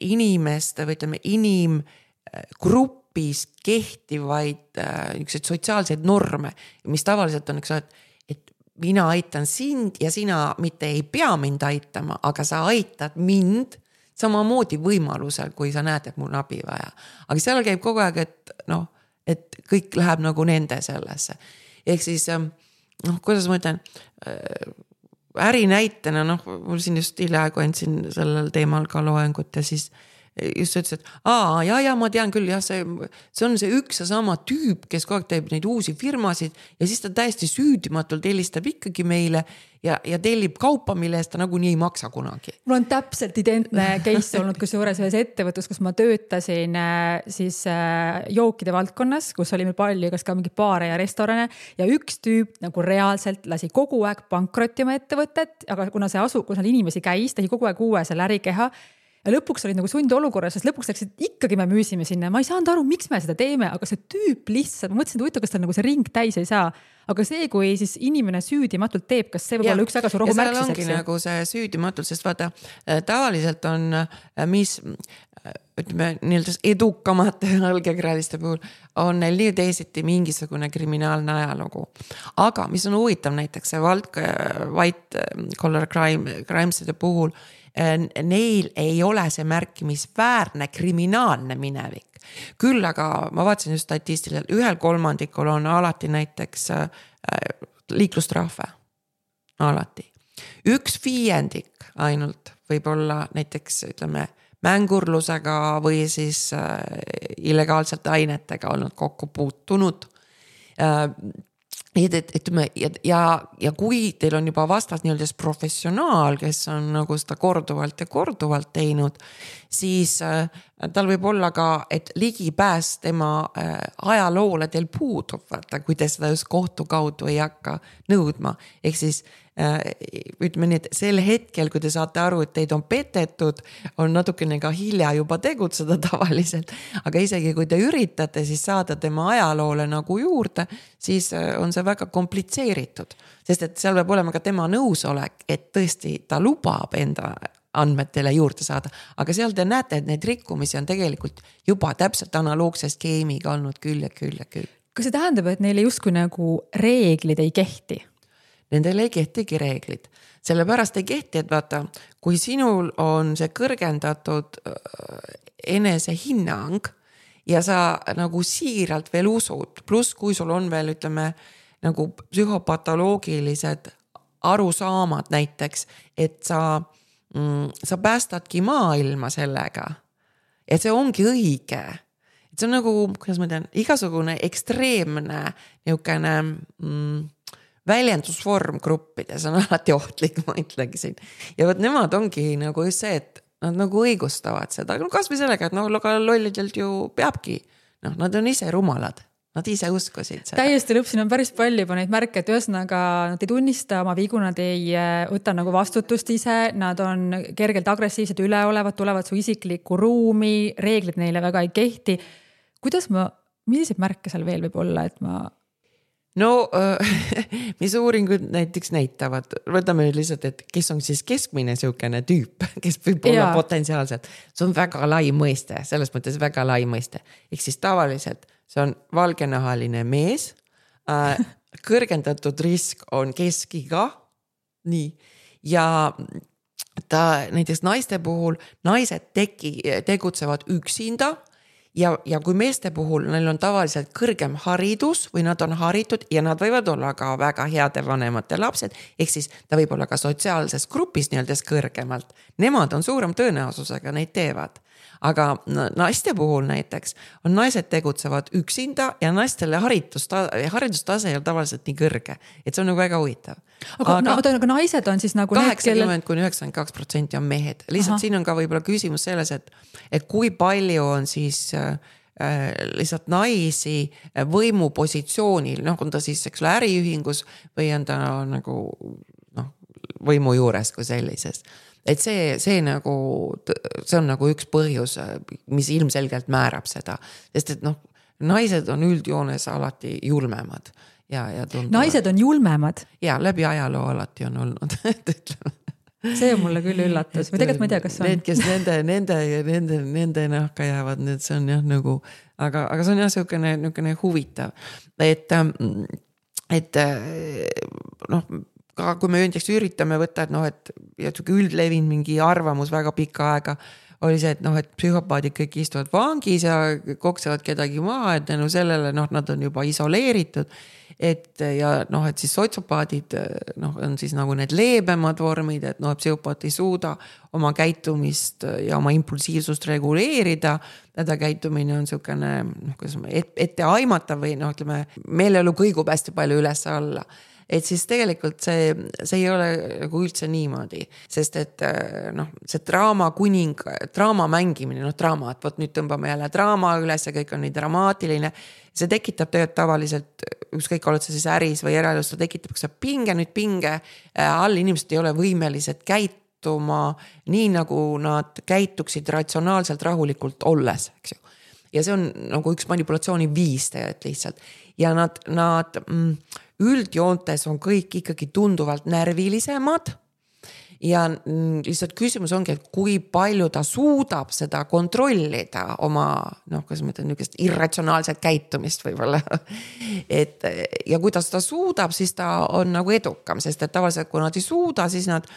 inimeste või ütleme inimgrupis kehtivaid sotsiaalseid norme, mis tavaliselt on, et mina aitan sind ja sina mitte ei pea mind aitama, aga sa aitad mind samamoodi võimalusel, kui sa näed, et mul on abi vaja. Aga seal käib kogu aeg, et kõik läheb nagu nende sellesse. Ehk siis, kuidas ma ütlen, ärinäitena, mul siin just hiljaaegu andsin sellel teemal ka loengut ja siis just ütles, et ma tean küll, see on see üks ja sama tüüp, kes kogu aeg teeb neid uusi firmasid ja siis ta täiesti süüdimatult helistab ikkagi meile ja tellib kaupa, mille eest ta nagunii ei maksa kunagi. Mul on täpselt identne case olnud kusjuures ühes ettevõttes, kus ma töötasin siis jookide valdkonnas, kus oli meil palju kas ka mingi baare ja restorane ja üks tüüp nagu reaalselt lasi kogu aeg pankrotima ettevõtet, aga kuna seal inimesi käis, tehi kogu aeg uue selle ärikeha ja lõpuks olid nagu sundolukorras, sest lõpuks läksid ikkagi me müüsime sinna. Ma ei saanud aru, miks me seda teeme, aga see tüüp lihtsalt, ma mõtlesin, et huvitav, kas tal nagu see ring täis ei saa. Aga see, kui siis inimene süüdimatult teeb, kas see võib olla üks väga suur ohumärk? Ja seal ongi nagu see süüdimatult, sest vaata, tavaliselt on, mis ütleme, nii-öelda edukamate algekraaliste puhul on neil nii teisiti mingisugune kriminaalne ajalugu. Aga mis on huvitav näiteks see white collar crimeside puhul, neil ei ole see märkimisväärne kriminaalne minevik. Küll aga ma vaatasin just statistiliselt, 1/3 on alati näiteks liiklustrahve. Alati. 1/5 ainult võib olla näiteks ütleme mängurlusega või siis illegaalselt ainetega olnud kokku puutunud. Ja kui teil on juba vastas nii-öelda professionaal, kes on nagu seda korduvalt teinud, siis tal võib olla ka, et ligipääs tema ajaloole teil puudub, kui te seda just kohtu kaudu ei hakka nõudma. Ehk siis ütleme nii, et sel hetkel, kui te saate aru, et teid on petetud, on natukene ka hilja juba tegutseda tavaliselt. Aga isegi kui te üritate siis saada tema ajaloole nagu juurde, siis on see väga komplitseeritud. Sest et seal peab olema ka tema nõusolek, et tõesti ta lubab enda andmetele juurde saada. Aga seal te näete, et neid rikkumisi on tegelikult juba täpselt analoogse skeemiga olnud küll. Kas see tähendab, et neile justkui nagu reeglid ei kehti? Nendel ei kehtigi reeglid. Sellepärast ei kehti, et vaata, kui sinul on see kõrgendatud enesehinnang ja sa nagu siiralt veel usud, pluss kui sul on veel, ütleme, nagu psühhopatoloogilised arusaamad näiteks, et sa päästadki maailma sellega, et see ongi õige. Et see on nagu, kuidas ma tean, igasugune ekstreemne niisugune väljendusvorm gruppides on alati ohtlik, ma ütlegi siin. Ja võt nemad ongi nagu just see, et nad nagu õigustavad seda. Kas või sellega, et lollidelt ju peabki. Nad on ise rumalad. Nad ise uskusid seda. Täiesti lõpp, siin on päris palju juba neid märke, et ühesõnaga nad ei tunnista oma vigu, nad ei võta nagu vastutust ise, nad on kergelt agressiivsed, üleolevad, tulevad su isiklikku ruumi, reeglid neile väga ei kehti. Milliseid märke seal veel võib olla, et ma... No, mis uuringud näiteks näitavad, võtame nüüd lihtsalt, et kes on siis keskmine siukene tüüp, kes võib olla potentsiaalselt. See on väga lai mõiste, selles mõttes väga lai mõiste. Ehk siis tavaliselt see on valgenahaline mees, kõrgendatud risk on keskiga, nii, ja ta näiteks naiste puhul, naised tegutsevad üksinda ja kui meeste puhul neil on tavaliselt kõrgem haridus või nad on haritud ja nad võivad olla ka väga heade vanemate lapsed, ehk siis ta võib olla ka sotsiaalses grupis nii-öelda kõrgemalt. Nemad on suurem tõenäosusega, neid teevad. Aga naiste puhul näiteks on naised tegutsevad üksinda ja naistele haridustase ei ole tavaliselt nii kõrge, et see on nagu väga huvitav. Aga naised on siis nagu 80–92% on mehed. Lihtsalt siin on ka võib-olla küsimus selles, et kui palju on siis lihtsalt naisi võimupositsioonil, on ta siis äriühingus või on ta nagu võimu juures kui sellises. Et see on nagu üks põhjus, mis ilmselgelt määrab seda, sest et naised on üldjoones alati julmemad. Ja naised on julmemad? Ja läbi ajaloo alati on olnud, see on mulle küll üllatus või tegelikult ma ei tea, kas on. Need, kes nende nahka jäävad, need see on jah nagu, aga see on jah niisugune huvitav, et kui me näiteks üritame võtta, et üldlevin mingi arvamus väga pikka aega oli see, et psühhopaadid kõik istuvad vangis ja koksevad kedagi maha, et sellele nad on juba isoleeritud, et siis sotsiopaadid on siis nagu need leebemad vormid, et psühhopaat ei suuda oma käitumist ja oma impulsiivsust reguleerida, täda käitumine on niisugune etteaimatav või meeleolu kõigub hästi palju üles alla. Et siis tegelikult see ei ole nagu üldse niimoodi, sest et see draama mängimine, draama, et võt nüüd tõmbame jälle draama üles ja kõik on nii dramaatiline, see tekitab tegelikult tavaliselt, ükskõik oled sa siis äris või eraelus, ta tekitab pinge all, inimesed ei ole võimelised käituma nii, nagu nad käituksid ratsionaalselt rahulikult olles, eks ju. Ja see on nagu üks manipulatsiooni viis tegelikult lihtsalt. Ja nad üldjoontes on kõik ikkagi tunduvalt närvilisemad ja lihtsalt küsimus ongi, et kui palju ta suudab seda kontrollida oma, kuidas ma ütlen, niisugust irratsionaalset käitumist võib-olla. Ja kuidas ta suudab, siis ta on nagu edukam, sest et tavaliselt kui nad ei suuda, siis nad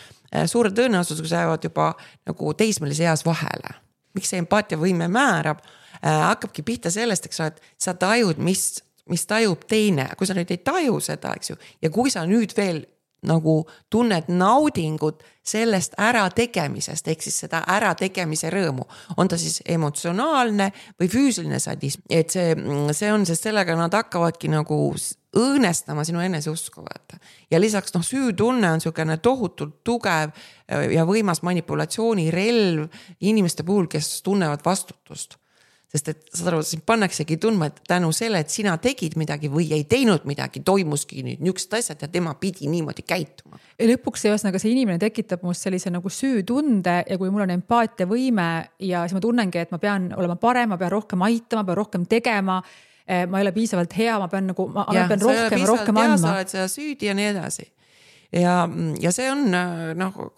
suure tõenäosusega jäävad juba nagu teismelise eas vahele. Miks see empaatiavõime määrab, hakkabki pihta sellest, et sa tajud, mis tajub teine, kui sa nüüd ei taju seda, eks ju, ja kui sa nüüd veel nagu tunned naudingut sellest ärategemisest, ehk siis seda ärategemise rõõmu, on ta siis emotsionaalne või füüsiline sadism, et see on, sest sellega nad hakkavadki nagu õõnestama sinu eneseusku vaata. Ja lisaks süütunne on niisugune tohutult tugev ja võimas manipulatsioonirelv inimeste puhul, kes tunnevad vastutust. Sest et saad aru, siin pannaksegi tundma, et tänu selle, et sina tegid midagi või ei teinud midagi, toimuski nüüd niisugused asjad ja tema pidi niimoodi käituma. Ja lõpuks see inimene tekitab must sellise nagu süütunde ja kui mul on empaatiavõime ja siis ma tunnengi, et ma pean olema parem, ma pean rohkem aitama, pean rohkem tegema, ma ei ole piisavalt hea, ma pean rohkem andma. Sa oled seda süüdi ja nii edasi. Ja see on,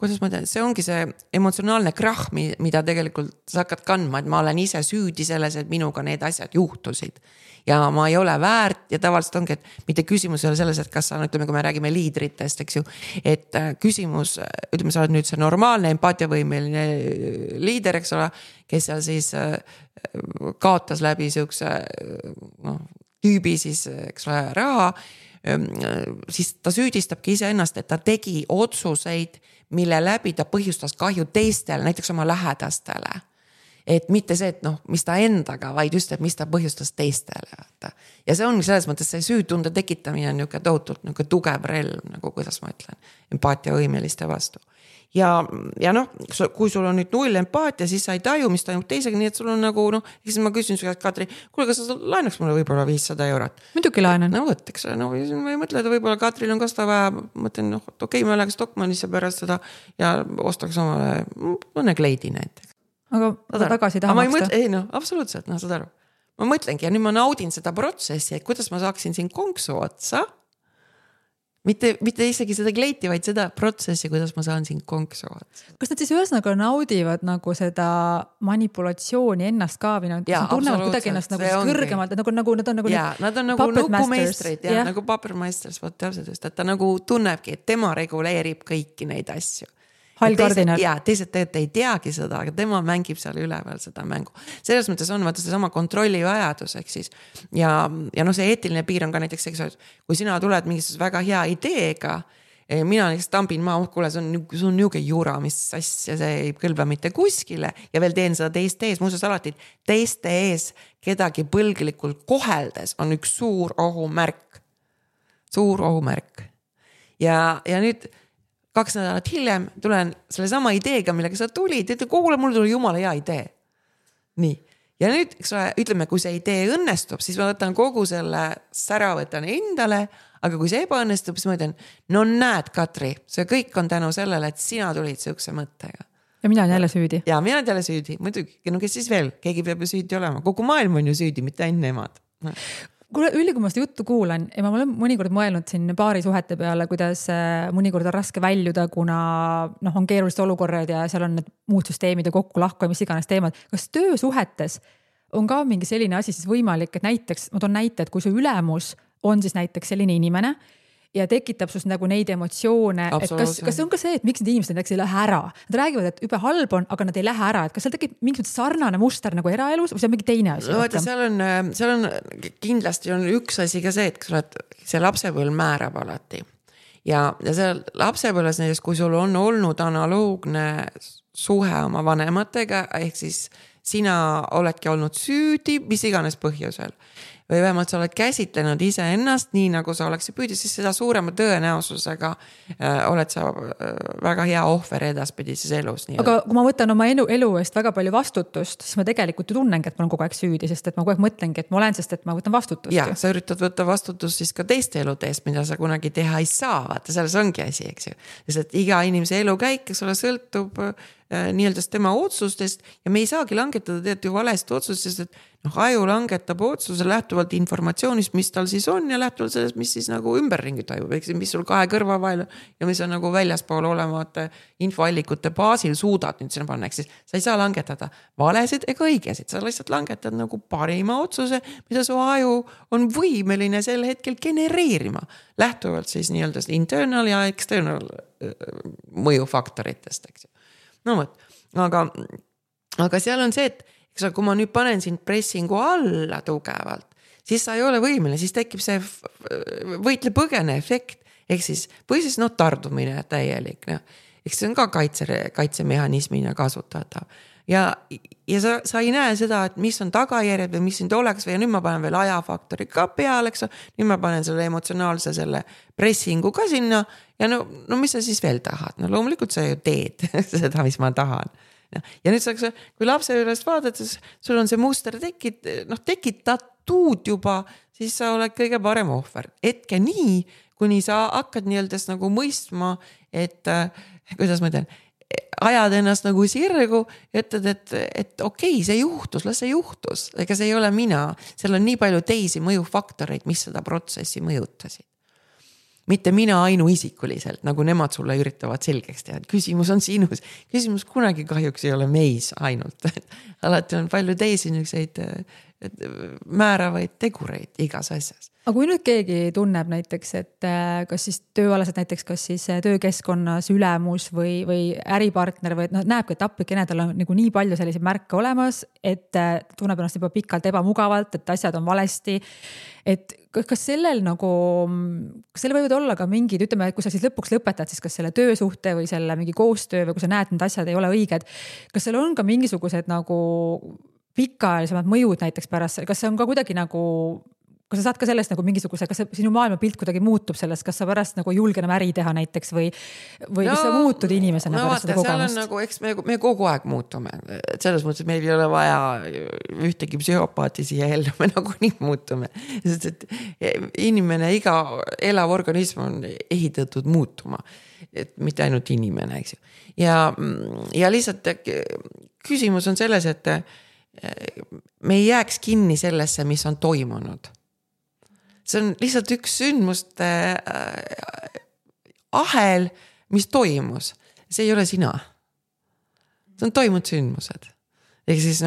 kuidas ma tean, see ongi see emotsionaalne krahh, mida tegelikult sa hakkad kandma, et ma olen ise süüdi selles, et minuga need asjad juhtusid. Ja ma ei ole väärt ja tavaliselt ongi, et mitte küsimus ei ole selles, et kas sa, ütleme, kui me räägime liidritest, eks ju, et küsimus, ütleme, sa oled nüüd see normaalne empaatiavõimeline liider, eks ole, kes seal siis kaotas läbi siukse tüübi siis, eks ole, raha, siis ta süüdistabki ise ennast, et ta tegi otsuseid, mille läbi ta põhjustas kahju teistele, näiteks oma lähedastele. Et mitte see, et mis ta endaga, vaid just, et mis ta põhjustas teistele. Ja see on selles mõttes see süütunde tekitamine on niisugune tohutult niisugune tugev relv, nagu kuidas ma ütlen, empaatiavõimeliste vastu. Ja kui sul on nüüd 0 empaatia, siis sa ei taju, mis toimub teisega, nii et sul on nagu, siis ma küsin su käest, Katri, kuule, kas sa laenaks mulle võib-olla 500 €? Muidugi laenan. Võtteks, ma ei mõtle, et võib-olla Katril on ka seda vaja, mõtlen, okei, ma läheks Stockmannisse pärast seda ja ostaks omale mõne kleidi näiteks. Aga tagasi taha maksta? Ei, absoluutselt, saad aru. Ma mõtlengi ja nüüd ma naudin seda protsessi, et kuidas ma saaksin siin konksu otsa. Mitte isegi seda kleiti, vaid seda protsessi, kuidas ma saan siin konksu otsa. Kas nad siis ühesõnaga naudivad nagu seda manipulatsiooni ennast ka või nad tunnevad kuidagi ennast nagu kõrgemalt, nad on nagu nad on nagu nukumeistrid, nagu papermeisters, täpselt just, et ta nagu tunnebki, et tema reguleerib kõiki neid asju. Hall kardinal. Ja teised tegelikult ei teagi seda, aga tema mängib seal üleval seda mängu. Selles mõttes on vaata see sama kontrolli vajadus, ehk siis. Ja see eetiline piir on ka näiteks, kui sina tuled mingisuguse väga hea ideega, mina näiteks tambin kuule, see on niuke jura, mis asja, see ei kõlba mitte kuskile ja veel teen seda teiste ees, muuseas alati teiste ees kedagi põlglikult koheldes on üks suur ohumärk. Ja nüüd 2 nädalat hiljem tulen selle sama ideega, millega sa tulid, et kuule, mul tuli jumala hea idee. Nii. Ja nüüd, ütleme, kui see idee õnnestub, siis ma võtan kogu selle sära võtan endale, aga kui see ebaõnnestub, siis ma ütlen, no näed, Katri, see kõik on tänu sellele, et sina tulid sihukese mõttega. Ja mina olen jälle süüdi. Ja mina olen jälle süüdi. Muidugi, no kes siis veel? Keegi peab ju süüdi olema. Kogu maailm on ju süüdi, mitte ainult nemad. Kuule, Ülli, kui ma seda juttu kuulan ja ma olen mõnikord mõelnud siin paari suhete peale, kuidas mõnikord on raske väljuda, kuna on keerulised olukorrad ja seal on need muud süsteemid ja kokku lahku ja mis iganes teemad. Kas töösuhetes on ka mingi selline asi siis võimalik, et näiteks, ma toon näite, et kui su ülemus on siis näiteks selline inimene ja tekitab sus nagu neid emotsioone, et kas on ka see, et miks need inimesed näiteks ei lähe ära? Nad räägivad, et übe halb on, aga nad ei lähe ära, et kas seal tekib mingi sarnane muster nagu eraelus või see on mingi teine asi? No, seal on kindlasti on üks asi ka see, et see lapsepõlv määrab alati. Ja seal lapsepõlves näiteks, kui sul on olnud analoogne suhe oma vanematega, ehk siis sina oledki olnud süüdi, mis iganes põhjusel. Või vähemalt sa oled käsitlenud ise ennast nii, nagu sa oleksid püüdi, siis seda suurema tõenäosusega oled sa väga hea ohver edaspidises elus. Aga kui ma võtan oma elu eest väga palju vastutust, siis ma tegelikult ju tunnengi, et ma olen kogu aeg süüdi, sest et ma kogu aeg mõtlengi, et ma olen, sest et ma võtan vastutust. Ja, sa üritad võtta vastutust siis ka teiste elude eest, mida sa kunagi teha ei saa. Vaata, selles ongi asi, eks ju. Sest et iga inimese elu käik, kes ole sõltub nii-öelda tema otsustest ja me ei saagi langetada tead ju valest otsustest, et aju langetab otsuse lähtuvalt informatsioonist, mis tal siis on ja lähtuvalt sellest, mis siis nagu ümberringi toimub, mis sul 2 kõrva vahel ja mis on nagu väljaspool olemata infoallikute baasil suudad nüüd sinna panna, siis sa ei saa langetada valesid ega õigesid, sa lihtsalt langetad nagu parima otsuse, mida su aju on võimeline sel hetkel genereerima, lähtuvalt siis nii-öelda internal ja external mõjufaktoritest, eks ju. No võt, aga seal on see, et kui ma nüüd panen sind pressingu alla tugevalt, siis sa ei ole võimeline, siis tekib see võitle-põgene efekt, ehk siis, või siis tardumine täielik, eks see on ka kaitsemehhanismina kasutatav. Ja sa ei näe seda, et mis on tagajärjed või mis sind oleks või nüüd ma panen veel ajafaktori ka peale, eks nüüd ma panen selle emotsionaalse selle pressingu ka sinna ja no mis sa siis veel tahad? No loomulikult sa ju teed seda, mis ma tahan. Ja nüüd kui lapse ülest vaadates, sul on see muster tekitatud juba, siis sa oled kõige parem ohver. Etke nii, kuni sa hakkad nii-öeldes nagu mõistma, et kuidas ma ütlen, ajad ennast nagu sirgu ja ütled, et okei, see juhtus, las see juhtus. Ega see ei ole mina. Seal on nii palju teisi mõjufaktoreid, mis seda protsessi mõjutasid. Mitte mina ainuisikuliselt, nagu nemad sulle üritavad selgeks teha. Küsimus on sinus. Küsimus kunagi kahjuks ei ole meis ainult. Alati on palju teisi niisuguseid määravaid tegureid igas asjas. Aga kui nüüd keegi tunneb näiteks, et kas siis tööalaselt näiteks, kas siis töökeskkonnas ülemus või äripartner või näebki, et applikene tal on nagu nii palju selliseid märke olemas, et tunneb ennast juba pikalt ebamugavalt, et asjad on valesti. Et kas sellel võivad olla ka mingid, ütleme, kui sa siis lõpuks lõpetad, siis kas selle töösuhte või selle mingi koostöö või kui sa näed, need asjad ei ole õiged, kas seal on ka mingisugused nagu pikaajalisemad mõjud näiteks pärast, kas see on ka kuidagi nagu kas sa saad ka sellest nagu mingisuguse, kas sinu maailmapilt kuidagi muutub sellest, kas sa pärast nagu julge enam äri teha näiteks või kas sa muutud inimesena pärast seda kogemust? Nagu, eks me kogu aeg muutume. Et selles mõttes, et meil ei ole vaja ühtegi psühhopaati siia ellu, me nagu nii muutume. Sest et inimene, iga elav organism on ehitatud muutuma. Et mitte ainult inimene, eks ju. Ja lihtsalt küsimus on selles, et me ei jääks kinni sellesse, mis on toimunud. See on lihtsalt üks sündmuste ahel, mis toimus. See ei ole sina. See on toimunud sündmused. ehk siis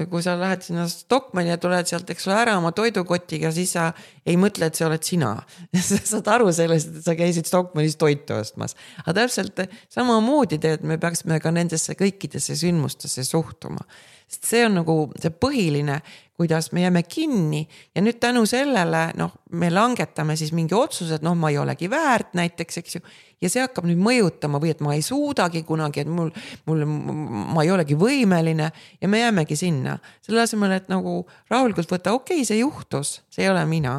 kui sa lähed sinna Stockmanni ja tuled sealt, eks ole, ära oma toidukotiga, siis sa ei mõtle, et see oled sina. Sa saad aru sellest, et sa käisid Stockmannis toitu ostmas. Aga täpselt samamoodi teed, me peaksime ka nendesse kõikidesse sündmustesse suhtuma. Sest see on nagu see põhiline, kuidas me jääme kinni ja nüüd tänu sellele, me langetame siis mingi otsused, ma ei olegi väärt näiteks, eks ju. Ja see hakkab nüüd mõjutama või et ma ei suudagi kunagi, et ma ei olegi võimeline ja me jäämegi sinna. Selle asemel, et nagu rahulikult võtta, okei, see juhtus, see ei ole mina.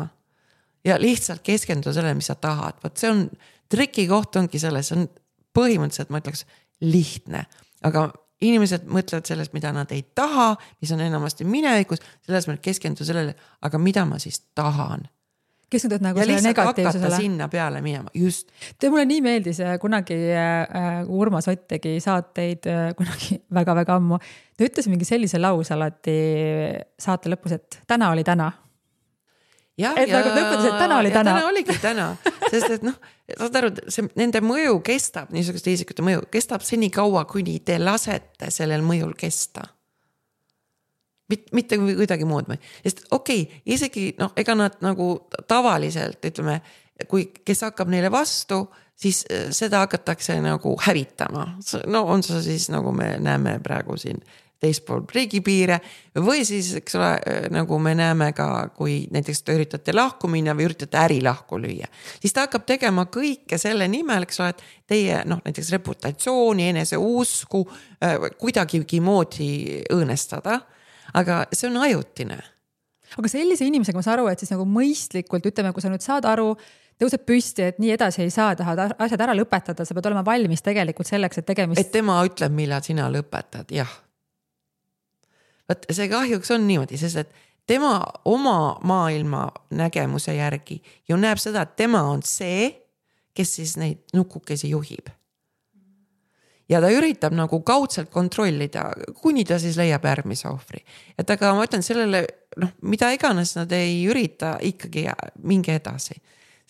Ja lihtsalt keskenduda sellele, mis sa tahad. Võt see on, triki koht ongi selles, see on põhimõtteliselt, ma ütleks, lihtne. Aga inimesed mõtlevad sellest, mida nad ei taha, mis on enamasti minevikus, selles mõttes keskendu sellele, aga mida ma siis tahan. Keskendud nagu ja selle negatiivsusele. Ja lihtsalt hakata sinna peale minema, just. Mulle nii meeldis kunagi Urmas Ott tegi saateid kunagi väga-väga ammu. Ta ütles mingi sellise lause alati saate lõpus, et täna oli täna. Et nagu ta ütles, et täna oli täna. Täna oligi täna, sest et saad aru, nende mõju kestab, niisuguste isikute mõju, kestab seni kaua, kuni te lasete sellel mõjul kesta. Mitte kuidagi muud. Sest isegi ega nad nagu tavaliselt, ütleme, kes hakkab neile vastu, siis seda hakatakse nagu hävitama. On see siis, nagu me näeme praegu siin teispool riigipiire või siis, eks ole, nagu me näeme ka, kui näiteks te üritate lahku minna või üritate äri lahku lüüa, siis ta hakkab tegema kõike selle nimel, eks ole, et teie näiteks reputatsiooni, enese usku kuidagigi moodi õõnestada. Aga see on ajutine. Aga sellise inimesega ma saan aru, et siis nagu mõistlikult, ütleme, kui sa nüüd saad aru, tõuseb püsti, et nii edasi ei saa, tahad asjad ära lõpetada, sa pead olema valmis tegelikult selleks, et tegemist... Et tema ütleb, millal sina lõpetad, jah. Võt, see kahjuks on niimoodi, sest et tema oma maailma nägemuse järgi ju näeb seda, et tema on see, kes siis neid nukukesi juhib. Ja ta üritab nagu kaudselt kontrollida, kuni ta siis leiab järgmise ohvri. Et aga ma ütlen sellele, mida iganes nad ei ürita ikkagi mingi edasi.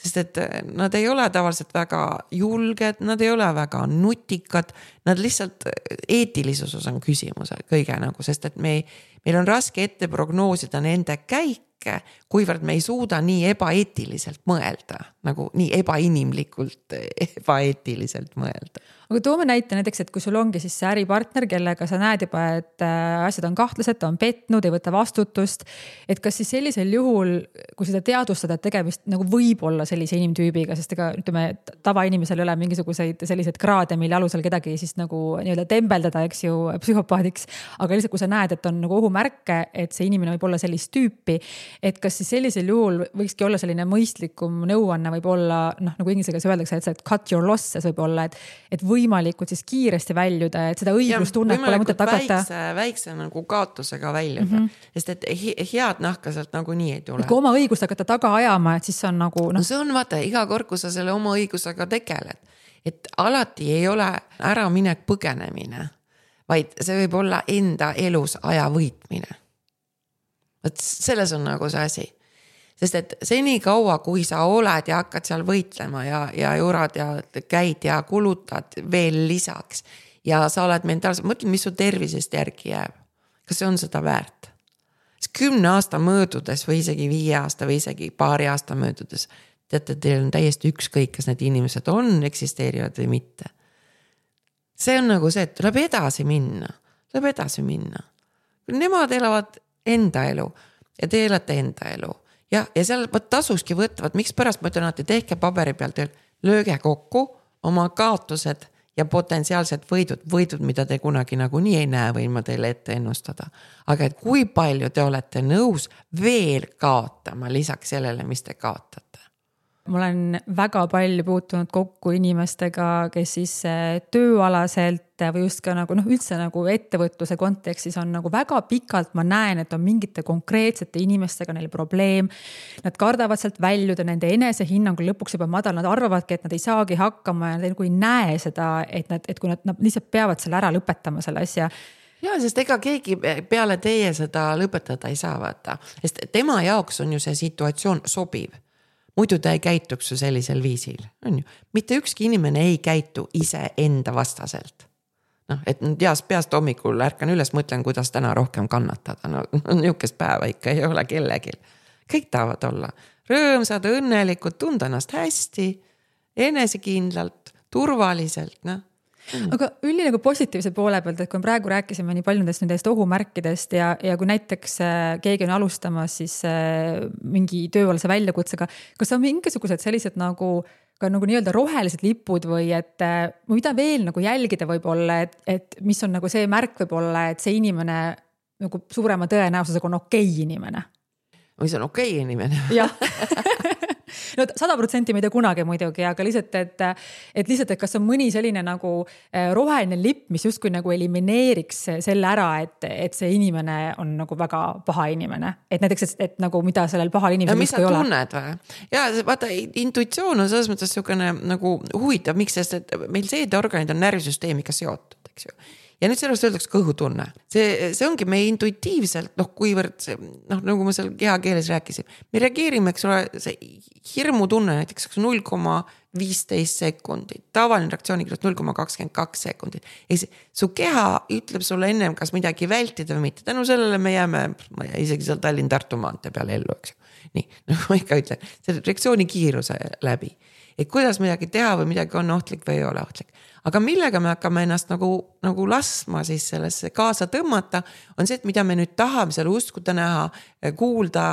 Sest et nad ei ole tavaliselt väga julged, nad ei ole väga nutikad, nad lihtsalt eetilisus on küsimus kõige nagu, sest et meil on raske ette prognoosida nende käike, kuivõrd me ei suuda nii ebaeetiliselt mõelda, nagu nii ebainimlikult ebaeetiliselt mõelda. Aga toome näite näiteks, et kui sul ongi siis see äripartner, kellega sa näed juba, et asjad on kahtlased, ta on petnud, ei võta vastutust, et kas siis sellisel juhul, kui seda teadvustada, et tegemist nagu võib olla sellise inimtüübiga, sest ega ütleme, tavainimesel ei ole mingisuguseid selliseid kraade, mille alusel kedagi siis nagu nii-öelda tembeldada, eks ju, psühhopaadiks, aga lihtsalt kui sa näed, et on nagu ohumärke, et see inimene võib olla sellist tüüpi, et kas siis sellisel juhul võikski olla selline mõistlikum nõuanne võib olla, nagu inglisega öeldakse, et cut your losses võib olla, et võimalikult siis kiiresti väljuda, et seda õiglustunnet pole mõtet hakata. Väikse nagu kaotusega väljuda, sest et head nahka sealt nagu nii ei tule. Kui oma õigust hakata taga ajama, et siis on nagu... No see on vaata, iga kord, kui sa selle oma õigusega tegeled, et alati ei ole ära minek põgenemine, vaid see võib olla enda elus aja võitmine. Selles on nagu see asi. Sest et seni kaua, kui sa oled ja hakkad seal võitlema ja jurad ja käid ja kulutad veel lisaks ja sa oled mentaalselt, mõtled, mis su tervisest järgi jääb. Kas see on seda väärt? 10 aasta möödudes või isegi 5 aasta või isegi paari aasta möödudes, teate, teil on täiesti ükskõik, kas need inimesed eksisteerivad või mitte. See on nagu see, et tuleb edasi minna. Nemad elavad enda elu ja te elate enda elu. Ja seal tasuski võtavad, miks pärast ma ütlen, et tehke paberi pealt, lööge kokku oma kaotused ja potentsiaalsed võidud, mida te kunagi nagu nii ei näe, võin ma teile ette ennustada. Aga et kui palju te olete nõus veel kaotama lisaks sellele, mis te kaotate? Ma olen väga palju puutunud kokku inimestega, kes siis tööalaselt või just ka nagu, üldse nagu ettevõtluse kontekstis on nagu väga pikalt ma näen, et on mingite konkreetsete inimestega neil probleem. Nad kardavad sealt väljuda, nende enese hinnangul lõpuks juba madal, nad arvavadki, et nad ei saagi hakkama ja nad ei näe seda, et kui nad lihtsalt peavad selle ära lõpetama selle asja. Ja, sest ega keegi peale teie seda lõpetada ei saa vaata, sest tema jaoks on ju see situatsioon sobiv. Muidu ta ei käituks ju sellisel viisil. On ju? Mitte ükski inimene ei käitu ise enda vastaselt. et peast hommikul ärkan üles, mõtlen, kuidas täna rohkem kannatada. Niukest päeva ikka ei ole kellegil. Kõik tahavad olla rõõmsad, õnnelikud, tunda ennast hästi, enesekindlalt, turvaliselt, Aga üldine nagu positiivse poole pealt, et kui praegu rääkisime nii palju nendest ohumärkidest ja kui näiteks keegi on alustamas siis mingi tööalase väljakutsega, kas on mingisugused sellised nagu ka nagu nii-öelda rohelised lipud või et mida veel nagu jälgida võib-olla, et mis on nagu see märk võib-olla, et see inimene nagu suurema tõenäosusega on okei inimene? Või see on okei inimene? Jah. No 100% ei tea kunagi muidugi, aga lihtsalt, et kas on mõni selline nagu roheline lipp, mis justkui nagu elimineeriks selle ära, et see inimene on nagu väga paha inimene. Et näiteks, et nagu mida sellel pahal inimesel mis sa tunned või? Ja vaata, intuitsioon on selles mõttes niisugune nagu huvitav, miks, sest et meil seedeorganid on närvisüsteemiga seotud, eks ju. Ja nüüd sellest öeldakse kõhutunne. See ongi meie intuitiivselt, kuivõrd see, nagu ma seal kehakeeles rääkisin, me reageerime, eks ole, see hirmutunne näiteks 0,15 sekundit, tavaline reaktsioonikiirus 0,22 sekundit. Su keha ütleb sulle ennem, kas midagi vältida või mitte. Tänu sellele me jääme, isegi seal Tallinn-Tartu maantee peale ellu, eks ju. Nii, nagu ma ikka ütlen, see reaktsioonikiiruse läbi. Et kuidas midagi teha või midagi on ohtlik või ei ole ohtlik. Aga millega me hakkame ennast nagu lasma siis sellesse kaasa tõmmata, on see, et mida me nüüd tahame seal uskuda näha, kuulda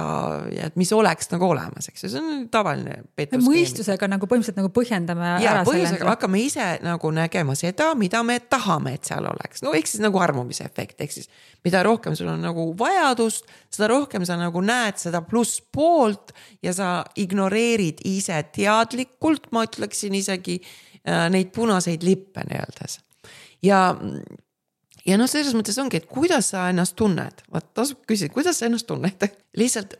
ja et mis oleks nagu olemas, eks. See on tavaline petuskeemi. Mõistusega nagu põhimõtteliselt nagu põhjendame ära selle. Hakkame ise nagu nägema seda, mida me tahame, et seal oleks. No eks siis nagu armumise efekt, eks siis mida rohkem sul on nagu vajadust, seda rohkem sa nagu näed seda pluss poolt ja sa ignoreerid ise teadlikult, ma ütleksin isegi neid punaseid lippe nii-öeldes. Ja selles mõttes ongi, et kuidas sa ennast tunned? Tasub küsida, kuidas sa ennast tunned? Lihtsalt,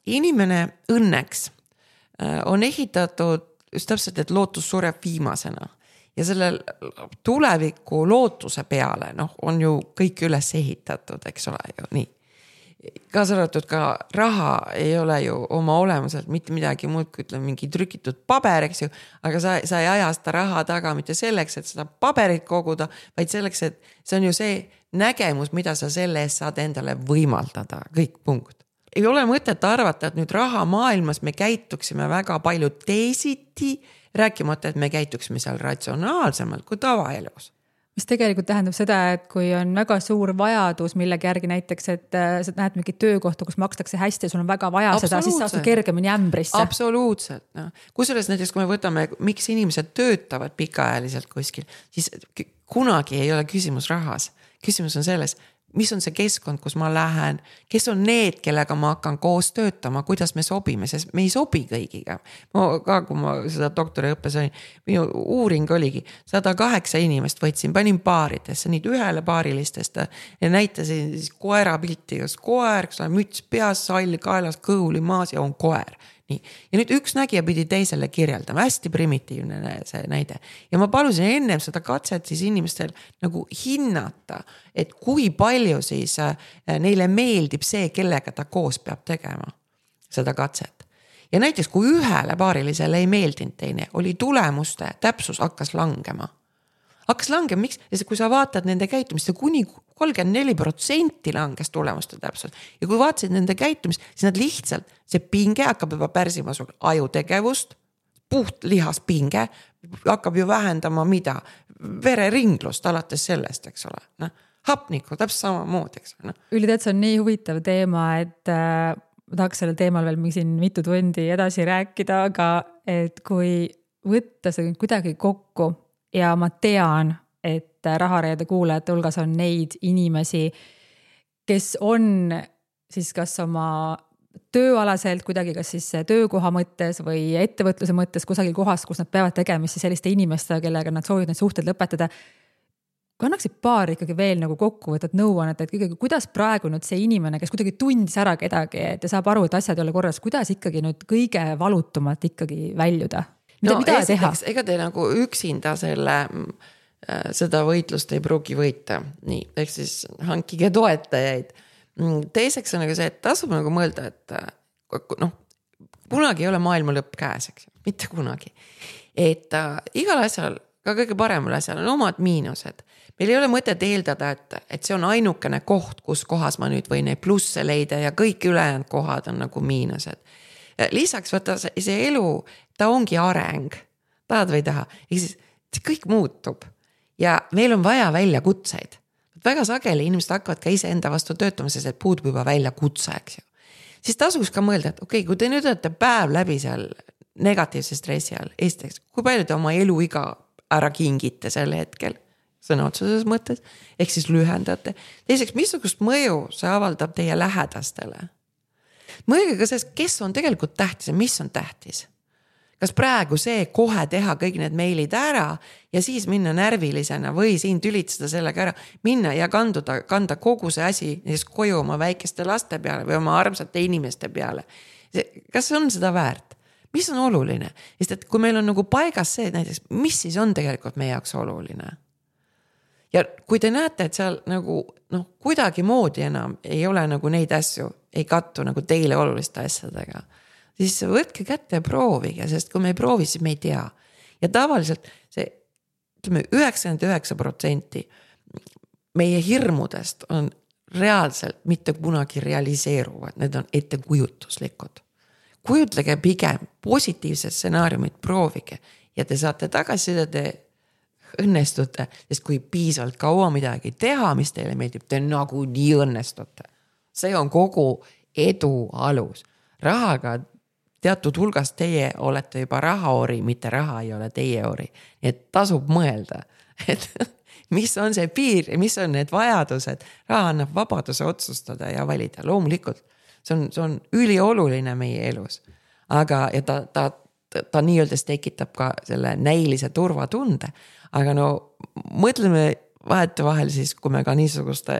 inimene õnneks on ehitatud just täpselt, et lootus sureb viimasena. Ja selle tuleviku lootuse peale on ju kõik üles ehitatud, eks ole ju, nii. Kaasa arvatud ka raha ei ole ju oma olemuselt mitte midagi muud, kui ütleme mingi trükitud paber, eks ju, aga sa ei aja seda raha taga mitte selleks, et seda paberit koguda, vaid selleks, et see on ju see nägemus, mida sa selle eest saad endale võimaldada, kõik punkt. Ei ole mõtet arvata, et nüüd raha maailmas me käituksime väga palju teisiti, rääkimata, et me käituksime seal ratsionaalsemalt kui tavaelus. Mis tegelikult tähendab seda, et kui on väga suur vajadus millegi järgi näiteks, et sa näed mingi töökohta, kus makstakse hästi ja sul on väga vaja seda, siis saad kergemini ämbrisse. Absoluutselt. Kusjuures näiteks, kui me võtame, miks inimesed töötavad pikaajaliselt kuskil, siis kunagi ei ole küsimus rahas. Küsimus on selles, mis on see keskkond, kus ma lähen, kes on need, kellega ma hakkan koos töötama, kuidas me sobime, sest me ei sobi kõigiga. Kui ma seda doktoriõppes olin, minu uuring oligi 108 inimest võtsin, panin paaridesse, nii ühele paarilistest ja näitasin siis koera pilti, kas koer, müts peas, sall kaelas, kõhuli maas ja on koer. Nii. Ja nüüd üks nägija pidi teisele kirjeldama, hästi primitiivne see näide. Ja ma palusin ennem seda katset siis inimestel nagu hinnata, et kui palju siis neile meeldib see, kellega ta koos peab tegema seda katset. Ja näiteks kui ühele paarilisele ei meeldinud teine, oli tulemuste täpsus hakkas langema. Miks? Sest kui sa vaatad nende käitumist, kuni 34% langes tulemuste täpselt. Ja kui vaatasid nende käitumist, siis nad lihtsalt, see pinge hakkab juba pärsima sul ajutegevust, puht lihaspinge, hakkab ju vähendama mida? Vereringlust alates sellest, eks ole. Hapnikku, täpselt sama mood, eks ole. Üli, see on nii huvitav teema, et ma tahaks sellel teemal veel siin mitu tundi edasi rääkida, aga et kui võtta see kuidagi kokku, ja ma tean, et Rahareede kuulajate hulgas on neid inimesi, kes on siis kas oma tööalaselt kuidagi kas siis töökoha mõttes või ettevõtluse mõttes kusagil kohas, kus nad peavad tegemist selliste inimestega, kellega nad soovivad need suhted lõpetada. Kui annaksid paar ikkagi veel nagu kokkuvõtad nõuannet, et ikkagi, kuidas praegu nüüd see inimene, kes kuidagi tundis ära kedagi, et saab aru, et asjad ei ole korras, kuidas ikkagi nüüd kõige valutumalt ikkagi väljuda? Mida teha? Ega te nagu üksinda seda võitlust ei pruugi võita. Nii, ehk siis hankige toetajaid. Teiseks on nagu see, et tasub nagu mõelda, et kunagi ei ole maailma lõpp käes, eks, mitte kunagi. Et igal asjal ka kõige paremal asjal on omad miinused. Meil ei ole mõtet eeldada, et see on ainukene koht, kus kohas ma nüüd võin neid plusse leida ja kõik ülejäänud kohad on nagu miinused. Lisaks võtta see elu, ta ongi areng, tahad või ei taha, see kõik muutub ja meil on vaja väljakutseid. Väga sageli inimesed hakkavad ka ise enda vastu töötama, sest et puudub juba väljakutse, eks ju. Siis tasuks ka mõelda, et okei, kui te nüüd olete päev läbi seal negatiivse stressi all, esiteks, kui palju te oma eluiga ära kingite sel hetkel, sõna otseses mõttes, ehk siis lühendate. Teiseks, missugust mõju see avaldab teie lähedastele? Mõelge ka sellest, kes on tegelikult tähtis ja mis on tähtis. Kas praegu see kohe teha kõik need meilid ära ja siis minna närvilisena või siin tülitseda sellega ära, minna ja kanda kogu see asi koju oma väikeste laste peale või oma armsate inimeste peale. Kas on seda väärt? Mis on oluline? Sest et kui meil on nagu paigas see näiteks, mis siis on tegelikult meie jaoks oluline? Ja kui te näete, et seal nagu kuidagi moodi enam ei ole nagu neid asju, ei kattu nagu teile oluliste asjadega, siis võtke kätte ja proovige, sest kui me ei proovi, siis me ei tea. Ja tavaliselt see 99% meie hirmudest on reaalselt mitte kunagi realiseeruvad, need on ettekujutuslikud. Kujutlege pigem positiivsed stsenaariumid, proovige ja te saate tagasisida, te õnnestute, sest kui piisavalt kaua midagi teha, mis teile meeldib, te nagu nii õnnestute. See on kogu edu alus. Rahaga teatud hulgast teie olete juba rahaori, mitte raha ei ole teie ori. Nii et tasub mõelda, et mis on see piir ja mis on need vajadused. Raha annab vabaduse otsustada ja valida. Loomulikult, see on ülioluline meie elus. Aga ja ta nii-öelda tekitab ka selle näilise turvatunde. Aga mõtleme vahetevahel siis, kui me ka niisuguste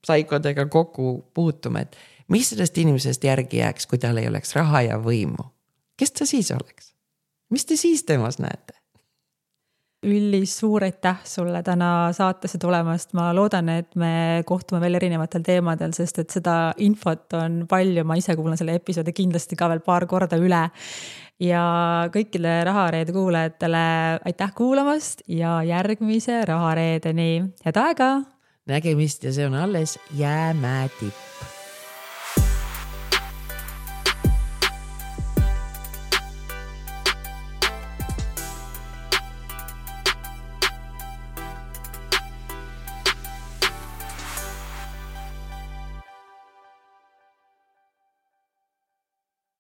saikodega kokku puutume, et mis sellest inimesest järgi jääks, kui tal ei oleks raha ja võimu? Kes ta siis oleks? Mis te siis temas näete? Üllis, suur aitäh sulle täna saatesse tulemast. Ma loodan, et me kohtume veel erinevatel teemadel, sest et seda infot on palju. Ma ise kuulan selle episoodi kindlasti ka veel paar korda üle. Ja kõikidele Rahareede kuulajatele aitäh kuulamast ja järgmise Rahareedeni. Head aega! Nägemist ja see on alles jäämäetipp.